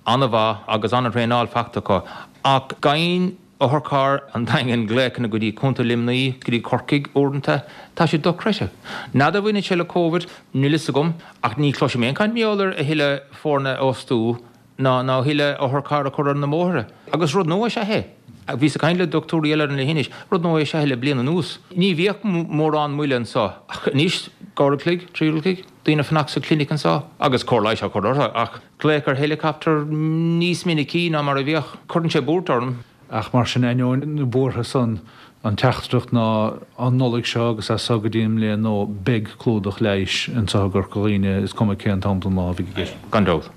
an-mhaith agus an-thraenáil faighte acu ach gheibheann Otharcharr an Daingin glaochanna go dtí Contae Luimnigh, go dtí Corcaigh uaireanta. Tá sé dochreidte. N'fheadar an mbaineann sé le Covid, níl fhios agam, ach ní chloisim aon chaint mar gheall ar a thuilleadh foirne a fhostú ná ná a thuilleadh otharcharr a chur ar na bóithre. Agus rud nua is ea é. Bhíos ag caint le dochtúirí eile ar an leithinis, rud nua is ea é le bliain anuas. Ní bhíodh mórán moille anseo ach anois, dhá uair a chloig, trí uair a chloig, daoine ag fanacht sa chlinic anseo agus cóir leighis á cur orthu ach, Glaoch ar héileacaptar níos minicí ná mar a bhíodh. Cuireann sé buairt orm. Ach mar sin, ainneoin na buartha san, an teachtaireacht ná an Nollaig seo agus as so go dtí an mbliain nua, beidh clúdach leighis anseo i gCorca Dhuibhne, is cuma cén t-am den lá a bheidh i gceist. Gan dabht.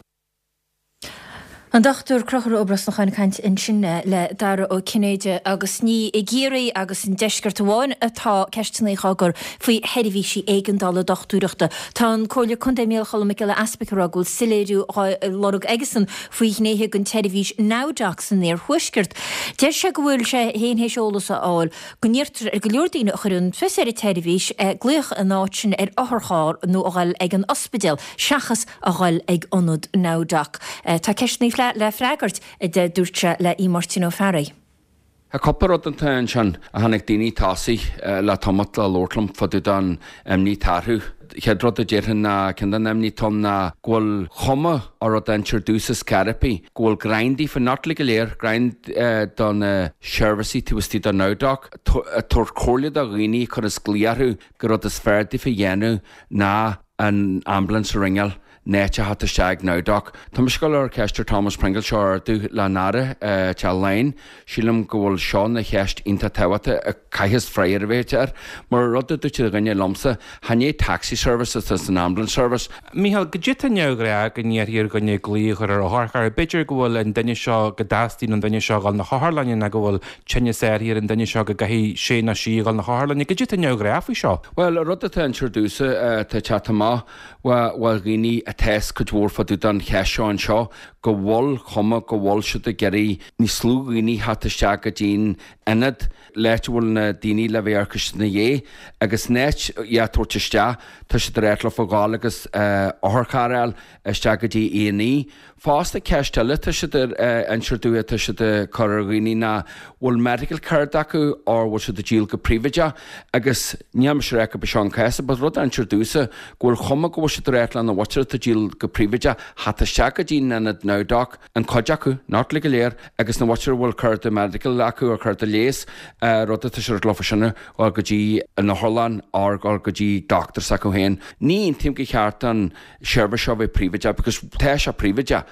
An Dr Conchúr Ó Brosnacháin ag caint ansin le Dara Ó Cinnéide agus ní i gCiarraí agus an deisceart amháin atá ceisteanna á gcur faoi sheirbhísí éigeandála dochtúireachta. Tá an Comhairleoir Contae Micheál Choilm Mac Giolla Easpaig ag rá go bhfuil soiléiriú á lorg aigesan faoi ghnéithe den tseirbhís NowDoc san iarthuaisceart. Deir sé go bhfuil sé féin théis eolas a fháil go n-iarrtar ar go leor daoine a chuireann fios ar an tseirbhís glaoch in áit sin ar otharcharr nó a dhul ag an ospidéal seachas a dhul ag ionad NowDoc. Tá ceisteanna le freagairt, a dúirt sé le Máirtín Ó Fearraigh. Tá cúpla rud atá ansin a chonaic daoine tosaigh le tamalt le labhairt liom fá dtaobh den imní atá orthu. Chéad rud a déarfainn ná ceann den imní atá ann ná go bhfuil cuma ar rud a instear domhsa scor ar bith, go bhfuil greim daofa, not uilig go léir, greim do na seirbhísí taobh istigh de NowDoc, ag tabhairt comhairle do dhaoine a chuireas glaoch orthu gur rud is fearr daofa a dhéanamh ná an ambulance a ringeáil. in áit a theacht isteach ag NowDoc. Tá mise ag dul ar cheist ar Thomas Pringle seo a ardú le an Aire Teach Laighean. Sílim go bhfuil seo ina cheist iontach tábhachtach a chaithfeas freagra a bheith air. Mar rud a dúirt duine liomsa, chan é taxi service atá san ambulance service. Mícheál, goidé atá neamhghnách go n-iarrfaí ar dhuine glaoch a chur ar otharcharr. B'fhéidir go bhfuil an duine seo, go dteastaíonn ón duine seo a dhul 'na hotharlainne nó go bhfuil tinneas áirithe ar an duine seo go gcaithfidh sé nó sí a dhul 'na hotharlainne. Goidé atá neamhghnách faoi seo. Bhuel, an rud atá instear domhsa atá ag teacht amach, ó dhaoine atá fhios cuid mhór fá dtaobh den cheist seo anseo, go bhfuil cuma go bhfuil siad ag iarraidh níos lú dhaoine theacht isteach go dtí'n ionad, l'áit a bhfuil na daoine le bheith amharc ina dhiaidh, agus in áit iad a tabhairt isteach, tá siad ag ráit leofa dhul agus otharcharr a fháil isteach go dtí A&E. Fosta, ceist eile atá siad ag inseacht domh atá siad ag cur ar dhaoine ná bhfuil medical card acu or bhfuil siad ag díol go príobháideach agus níl mise ag rá gurb é seo an cás but rud a instear domhsa go bhfuil chuma go bhfuil siad ag ráit lena mhuintir atá ag díol go príobháideach theacht isteach go dtí an ionad NowDoc an cuid acu, not uilig go léir, agus na mhuintir a bhfuil cárta medical acu or cárta leighis rud atá siad ag ráit leofa sin a dhul go dtí an otharlann or dhul go dtí doctor s'acu féin. Ní aontaím gur cheart an seirbhís seo a bheith príobháideach because tá sé príobháideach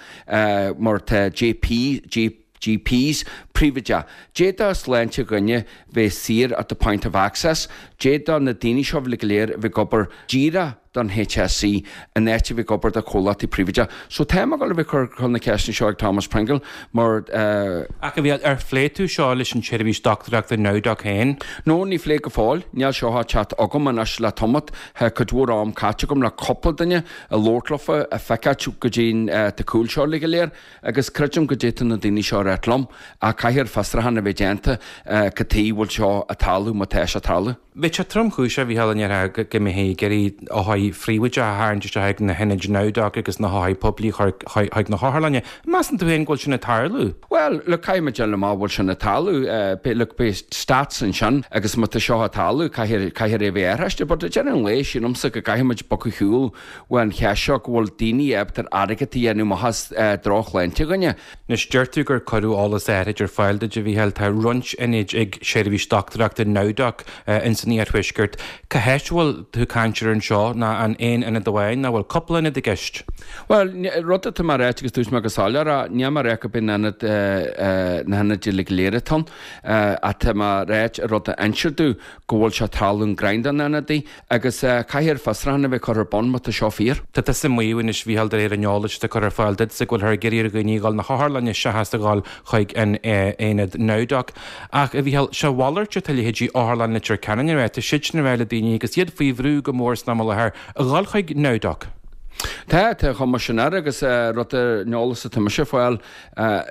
mar tá JP, GPs príobháideach. D'fhéadfadh sláinte dhuine bheith saor at the point of access, d'fhéadfadh na daoine seo uilig go léir a bheith ag obair díreach don HSE in áit a bheith ag obair do chomhlachtaí príobháideach. So tá mé ag dul a bheith ag cur na ceisteanna seo ag Thomas Pringle mar. Ach a Mhícheáil, ar phléigh tú seo leis an tseirbhís dochtúireachta NowDoc féin? No, ní phléigh go fóill. Níl seo á teacht agam anois le tamalt. Tá cuid mhór am caite agam le cúpla duine ag labhairt leofa, ag feiceáilt goidé tá cúl seo uilig go léir agus creidim goidé tá na daoine seo ag ráit liom ach caithfidh fiosrúchán a bheith déanta cad tuige bhfuil seo ag tarlú má tá sé ag tarlú. Bheadh sé tromchúiseach, a Mhícheáil, an ndéarfá go mbeifí ag iarraidh othair phríobháideacha a tharraingt isteach ag na hionaid NowDoc agus na hothair poiblí a chur chuig na hotharlanna. Measann tú féin go bhfuil sin ag tarlú? Bhuel, look, caithfidh muid déanamh amach an bhfuil sin ag tarlú. Beidh, look, beidh stats ansin agus má tá seo ag tarlú, caithfidh, caithfear é a bheith athraiste. But ag deireadh an lae, sílimse go gcaithfidh muid bogadh ar shiúl uaidh an cheist seo go bhfuil daoine ábalta airgead a dhéanamh amach as drochshláinte dhuine. Anois, deir tú gur cuireadh eolas áithrid ar fáil duit, a Mhícheáil. Tá roinnt ionaid ag seirbhís dochtúireachta NowDoc ins an iarthuaisceart. Cá háit a bhfuil tú ag caint air anseo? Nó an aon ionad amháin nó bhfuil cúpla ionad i gceist? Bhuel, rud atá mé a ráit agus dúirt mé go soiléir é, níl mé a rá gurb in ionad na hionaid uilig go léir atá ann, ach tá mé a ráit an rud a insear domh go bhfuil sé ag tarlú in greim de na hionadaí agus caithfear fiosrúchán a bheith curtha ar bun má tá seo fíor. Tá tusa ag maíomh anois, a Mhícheáil, de réir an eolais atá curtha ar fáil duitse, go bhfuilthear ag iarraidh ar dhaoine a dhul na hotharlainne seachas a dhul chuig an aonad NowDoc. Ach, a Mhícheáil, sé a mhalairt atá leithéidí Otharlann Leitir Ceanainn a rá, tá siadsan ag rá le daoine, agus iad faoi bhrú go mór san am i láthair, a dhul chuig NowDoc. Tá, tá chuma sin air agus rud ar an eolas atá mise a fáil,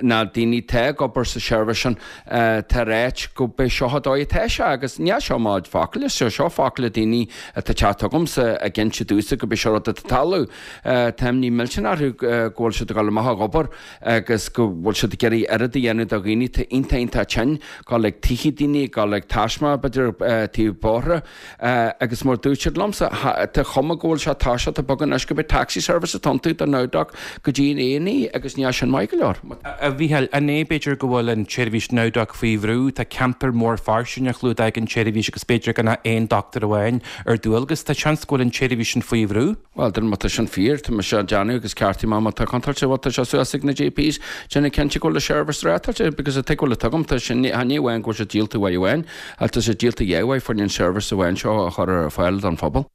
na daoine atá ag obair sa seirbhís sin, tá ag ráit go b'é seo an dóigh atá sé agus níl seo mo chuid focail, is seo focail daoine atá ag teacht chugamsa ag inse domhsa go b'é seo rud atá ag tarlú. Tá imní millteanach orthu go bhfuil siad ag dul amach ag obair agus go bhfuil siad ag iarraidh oiread a dhéanamh do dhaoine atá iontach iontach tinn, dul ag tithe daoine, dul ag taisme b'fhéidir taobh bóithre. Agus mar dúirt siad liomsa, tá chuma go bhfuil sé toiseacht ag bogadh anois go b'é taxi service atá iontu do NowDoc go dtí an A&E agus níl sin maith go leor. A Mhícheáil, an é b'fhéidir go bhfuil an tseirbhís NowDoc faoi bhrú? Tá ceantar mór fairsing á chlúdach ag an tseirbhís agus b'fhéidir gan ach aon dochtúir amháin ar dualgas. Tá seans go bhfuil an tseirbhís sin faoi bhrú? Bhuel, má tá sin fíor, tá mise á déanamh agus ceartaigh mé má tá contúirt, bhuel tá sé suas ag na GPs déanamh cinnte go bhfuil an seirbhís reáchtáilte because an tuige bhfuil a tuigim, tá sin, ní amháin go bhfuil sé díolta uair amháin ach tá sé díolta dhá uair fá choinne an seirbhís amháin seo a chur ar fáil don phobal.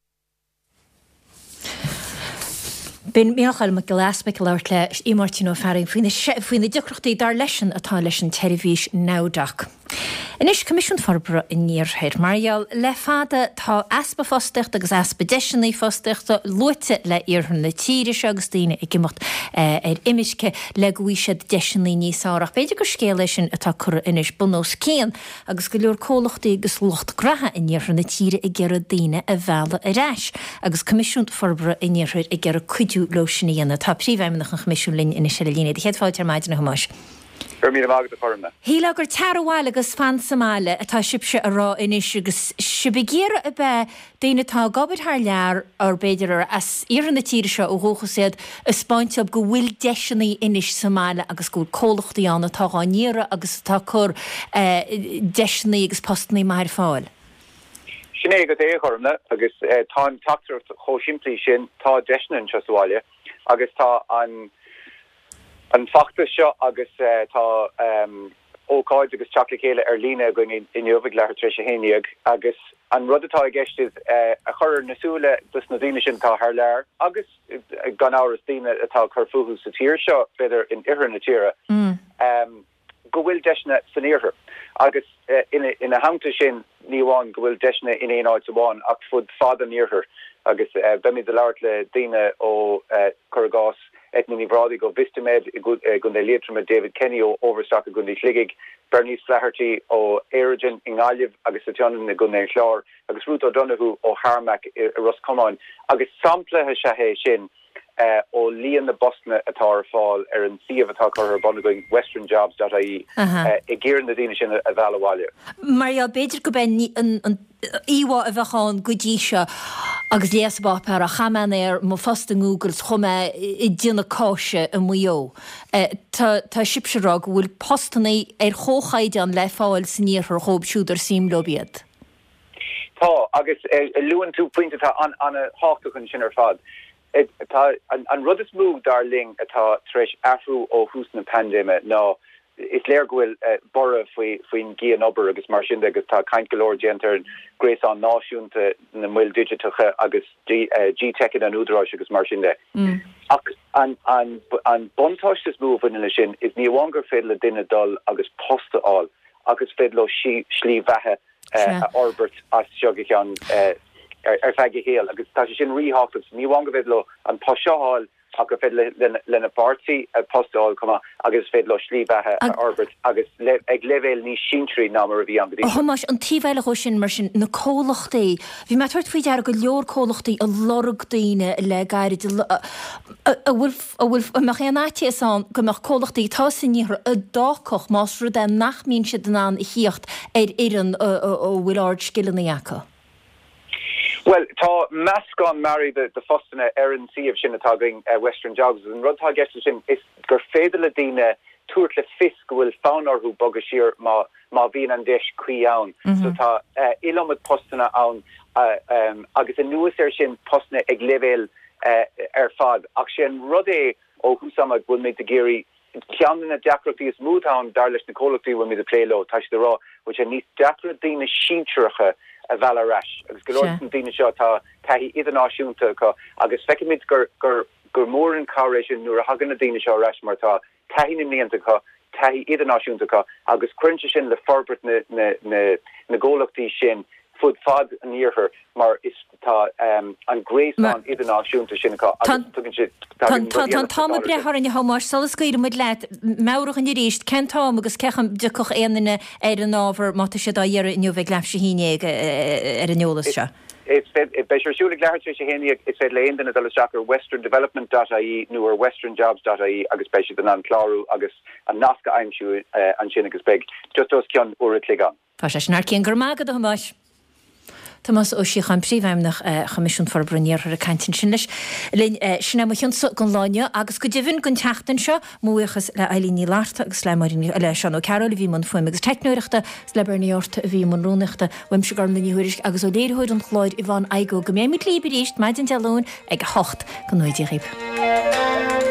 B'in Mícheál Mac Giolla Easpaig ag labhairt le Aodh Máirtín Ó Fearraigh faoi na deacrachtaí dar leisean atá leis an tseirbhís NowDoc. Anois, Coimisiún Forbartha an Iarthair. Mar gheall le fada tá easpa fostaíochta agus easpa deiseanna fostaíochta luaite le iarthar na tíre seo agus daoine ag imeacht ar imirce le go bhfaighidh siad deiseanna níos fearr. Ach b'fhéidir gur scéal é sin atá curtha anois bun os cionn agus go leor comhlachtaí agus lucht graithe in iarthar na tíre ag iarraidh daoine a mhealladh ar ais agus Coimisiún Forbartha an Iarthair ag iarraidh cuidiú leo sin a dhéanamh. Tá Príomhfheidhmeannach an Choimisiúin linn anois ar an líne. Céad fáilte ar maidin, a Thomáis. Go raibh míle maith agat, a Chormna. Shílfeá gur tar abhaile agus fan sa mbaile atá sibhse a rá anois agus sibh ag iarraidh ab ea daoine atá ag obair thar lear or b'fhéidir ar as iarthar na tíre seo ó dhúchas iad a 'speáint dóibh go bhfuil deiseanna anois sa mbaile agus go bhfuil comhlachtaí ann atá dhá n-iarraidh agus atá ag cur deiseanna agus postannaí maith ar fáil. Sin é agat é, a Chormna, agus tá an teachtaireacht chomh simplí sin, tá deiseanna anseo sa bhaile agus tá an an feachtas seo agus tá ócáid agus teacht le chéile ar líne againn inniu ag leathuair tar éis a 11 agus an rud atá i gceist is a chur ar na súile dos na daoine sin atá thar lear agus gan amhras daoine atá ag cur fúthu sa tír seo, b'fhéidir in oirthear na tíre. go bhfuil deiseanna san iarthar agus ina theannta sin ní amháin go bhfuil deiseanna in aon áit amháin ach fud fad an iarthair agus beimid ag labhairt le daoine ó, cuir i gcás, Eithne Ní Bhrádaigh ó Vistamed i gContae Liatroma, David Kenny ó Overstock i gContae Shligigh, Bernice Flaherty ó Aerogen i nGaillimh agus sa tSionainn i gContae an Chláir agus Ruth O'Donoghue ó Harmac i Ros Comáin agus sampla is ea é sin ó líon na bpostanna atá ar fáil ar an suíomh atá curtha ar bun againn, westernjobs dot ie, ag iarraidh na daoine sin a mhealladh abhaile. Mar gheall, b'fhéidir go b'é an íomhá a bheadh ann go dtí seo agus léas an pháipéar, ach chaith mé an aer mo phost i nGoogle 's chuaigh mé ag déanamh cáise i Maigh Eo. Tá tá sibhse ag rá go bhfuil postanna ar chomhchaighdeán le fáil san iarthar dhóibh siúd ar suim leo iad. Tá, agus luann tú pointe atá an-tábhachtach ansin ar fad. Tá an rud is mó, dar linn, atá tar éis athrú ó thús na paindéime ná is léir go bhfuil borradh faoin gcianobair agus mar sin de agus tá caint go leor déanta ar an gréasán náisiúnta na moil digiteacha agus GTeiceanna an Údaráis agus mar sin de. Ach an buntáiste is mó a bhaineann leis sin is ní amháin gur féidir le duine dul agus post a fháil ach is féidir leo slí bheatha a fhorbairt as seo go ceann ar feadh a shaoil agus tá sé sin ríthábhachtach. Ní amháin go bhféidir leo an post seo a fháil. Ach gur féidir lena bpáirtí post a fháil chomh maith agus is féidir leo slí bheatha a fhorbairt agus ag leibhéal níos sinsearaí ná mar a bhí ann go dtí A seo. Thomáis, an taobh eile dhó sin, mar sin, na comhlachtaí, bhí mé ag tabhairt faoi deara go leor comhlachtaí ag lorg daoine le gairid, an bhfuil, an bhfuil, an mbeadh aon fhaitíos ann go mbeadh comhlachtaí atá san iarthar a d'fhágfadh más rud é nach mbíonn siad in ann a thíocht ar fhoireann a bhfuil ard-scileanna acu? Bhuel, tá meascán mearaí de phostanna ar an suíomh sin atá againn, Western Jobs, agus an rud atá i gceist leis sin is gur féidir le daoine tabhairt le fios go bhfuil fonn orthu bogadh siar má má bhíonn an deis cuí ann. So tá iliomad postanna ann agus anuas air sin postanna ag leibhéil ar fad. Ach sé an rud é ó thús ama go bhfuilimid ag iarraidh Ceann de na deacrachtaí is mó atá ann, dar leis na comhlachtaí a bhfuilimid ag plé leo, tá siad ag rá go bhfuil sé níos deacra daoine sinsearacha a mhealladh ar ais agus go leor de na daoine seo tá taithí idirnáisiúnta acu agus feicimid gur gur gur mór an cabhair é sin nuair a thagann na daoine seo ar ais mar tá taithí na mblianta acu, taithí idirnáisiúnta acu agus cuireann sé sin le forbairt na na na na gcomhlachtaí sin fud fad an iarthair mar is tá an gréasán idirnáisiúnta sin acu agus tugann siad tagann rudaí eile Tá an t-am ag breith orainn a Thomáis, sula scaoilfidh muid leat, meabhraigh dhúinn arís cén t-am agus cén chaoi a dtiocfadh aon duine ar an ábhar má tá siad á iarraidh inniu ag leathuair tar éis a haon déag ar an eolas seo. Is féidir, beidh sé ar siúl ag leathuair tar éis a haon déag, is féidir le aon duine dul isteach ar westerndevelopment dot ie nó ar westernjobs dot ie agus beidh siad in ann clárú agus an nasc a aimsiú ansin agus beidh just os cionn uair a chloig ann. Tá sé sin thar cionn. Go raibh maith agat, a Thomáis. Tomás Ó Síocháin, Príomhfheidhmeannach Choimisiún Forbartha an Iarthair ag caint ansin leis linn. Sin é mo chionsa don lá inniu agus go deimhin don tseachtain seo. Mo bhuíochas le Eilín Ní Fhlatharta agus le Máirín Ní, le Seán Ó Cearúil a bhí i mbun fuaime agus teicneoireachta agus le Bernie Orta a bhí i mbun rúnaíochta. Uaimse Gormlaith Ní Thuairisg agus ó léiritheoir an chláir Yvonne Igoe go mbeidh muid libh arís maidin Dé Luain ag 8. Go ngnóthaí Dia dhaoibh.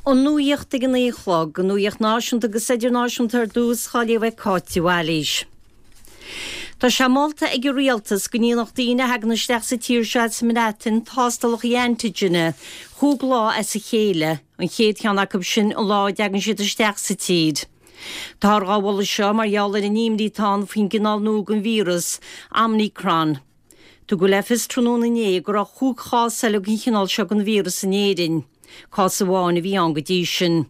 An nuacht ag a 9 a chlog, an nuacht náisiúnta agus idirnáisiúnta ar dtús, á léamh ag Cáit de Bhailís. Tá sé molta ag an Rialtas go ndéanfadh daoine a thagann isteach sa tír seo as an mBreatain tástálacha antigine chúig lá as a chéile, an chéad cheann acu sin an lá a dtagann siad isteach sa tír. Táthar dhá mholadh seo mar gheall ar an imní atá ann faoin gcineál nua den víreas, Omicron. Tugadh le fios tráthnóna inné go raibh chúig chás eile den chineál seo den víreas in Éirinn. Cás amháin a bhí ann go dtí sin.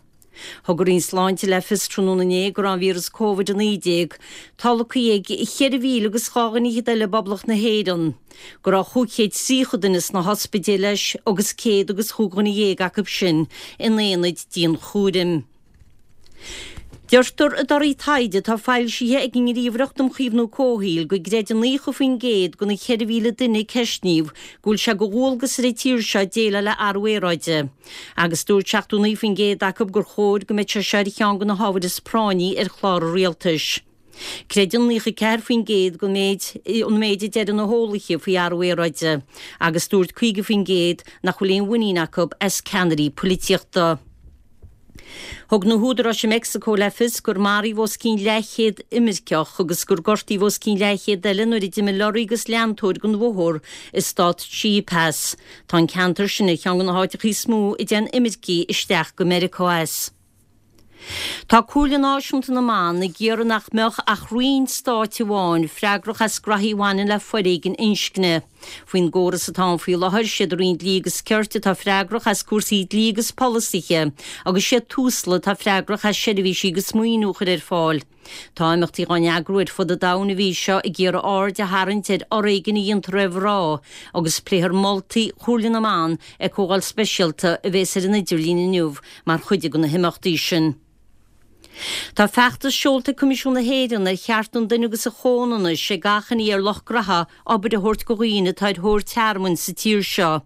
Thug an Roinn Sláinte le fios tráthnóna inné go raibh an víreas Covid-19 tolgtha ag 4,000 agus 2 dhuine fhichead eile i bPoblacht na hÉireann, go raibh 530 duine sna hospidéil leis agus 100 agus chúig dhuine dhéag acu sin in aonaid dianchúraim. Deirtear i dtorthaí taighde atá foilsithe ag an nGníomhaireacht um Chaomhnú Comhshaoil go gcreideann 90% de na 4,000 duine a ceistníodh go bhfuil sé de dhualgas ar an tír seo déileáil le athrú aeráide. Agus dúirt 79% acu gur chóir go mbeadh sé seo ar cheann de na hábhair is práinní ar chlár an rialtais. Creideann 94% den méid an méid a deireann na heolaithe faoi athrú aeráide agus dúirt 50% nach bhfuil aon mhuinín acu as ceannairí polaitíochta. Thug na húdaráis i Meicsiceo le fios gur maraíodh os cionn leathchéad imirceach agus gur gortaíodh os cionn leathchéad eile nuair a d'imigh lorraí agus leantóir den bhóthar i stát Chiapas. Tá an ceantar sin ar cheann de na háiteacha is mó a dtéann imircigh isteach go Meiriceá as. Tá Comhairle Náisiúnta na mBan ag iarraidh nach mbeadh ach roinn stáit amháin freagrach as graithí a bhaineann le foréigean inscne. Faoin gcóras atá ann faoi láthair, siad an Roinn Dlí agus Cirt atá freagrach as cúrsaí dlí agus polasaithe agus siad Tusla atá freagrach as seirbhísí agus maoiniú a chur ar fáil. Tá imeachtaí á n-eagrú ar fud an domhain an mhí seo ag iarraidh aird a tharraingt ar fhoréigean a dhéantar ar mhná agus pléifear moltaí Chomhairle na mBan ag comhdháil speisialta a bhéas ar an idirlíon inniu mar chuid de na himeachtaí sin. Tá feachtas seolta ag Coimisiún na hÉireann ar Chearta an Duine agus an Chomhionannais ag achainí ar lucht graithe obair a thabhairt go dhaoine atá ar thóir tearmainn sa tír seo.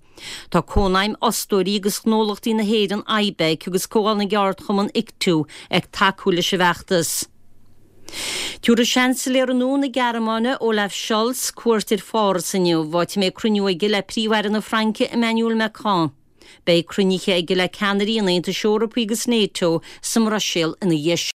Tá Cónaidhm Fhostóirí agus Ghnólachtaí na hÉireann, IBEC, agus Comhdháil na gCeardchumann, ICTU, ag tacú leis an bhfeachtas. Tabharfaidh Seansailéara nua na Gearmáine, Olaf Scholz, cuairt ar Pháras inniu, áit a mbeidh cruinniú aige le Príomh-Aire na Fraince, Emmanuel Macron. Beidh cruinnithe aige le ceannairí an Aontais Eorpaigh agus NATO sa mBruiséil ina dhiaidh sin.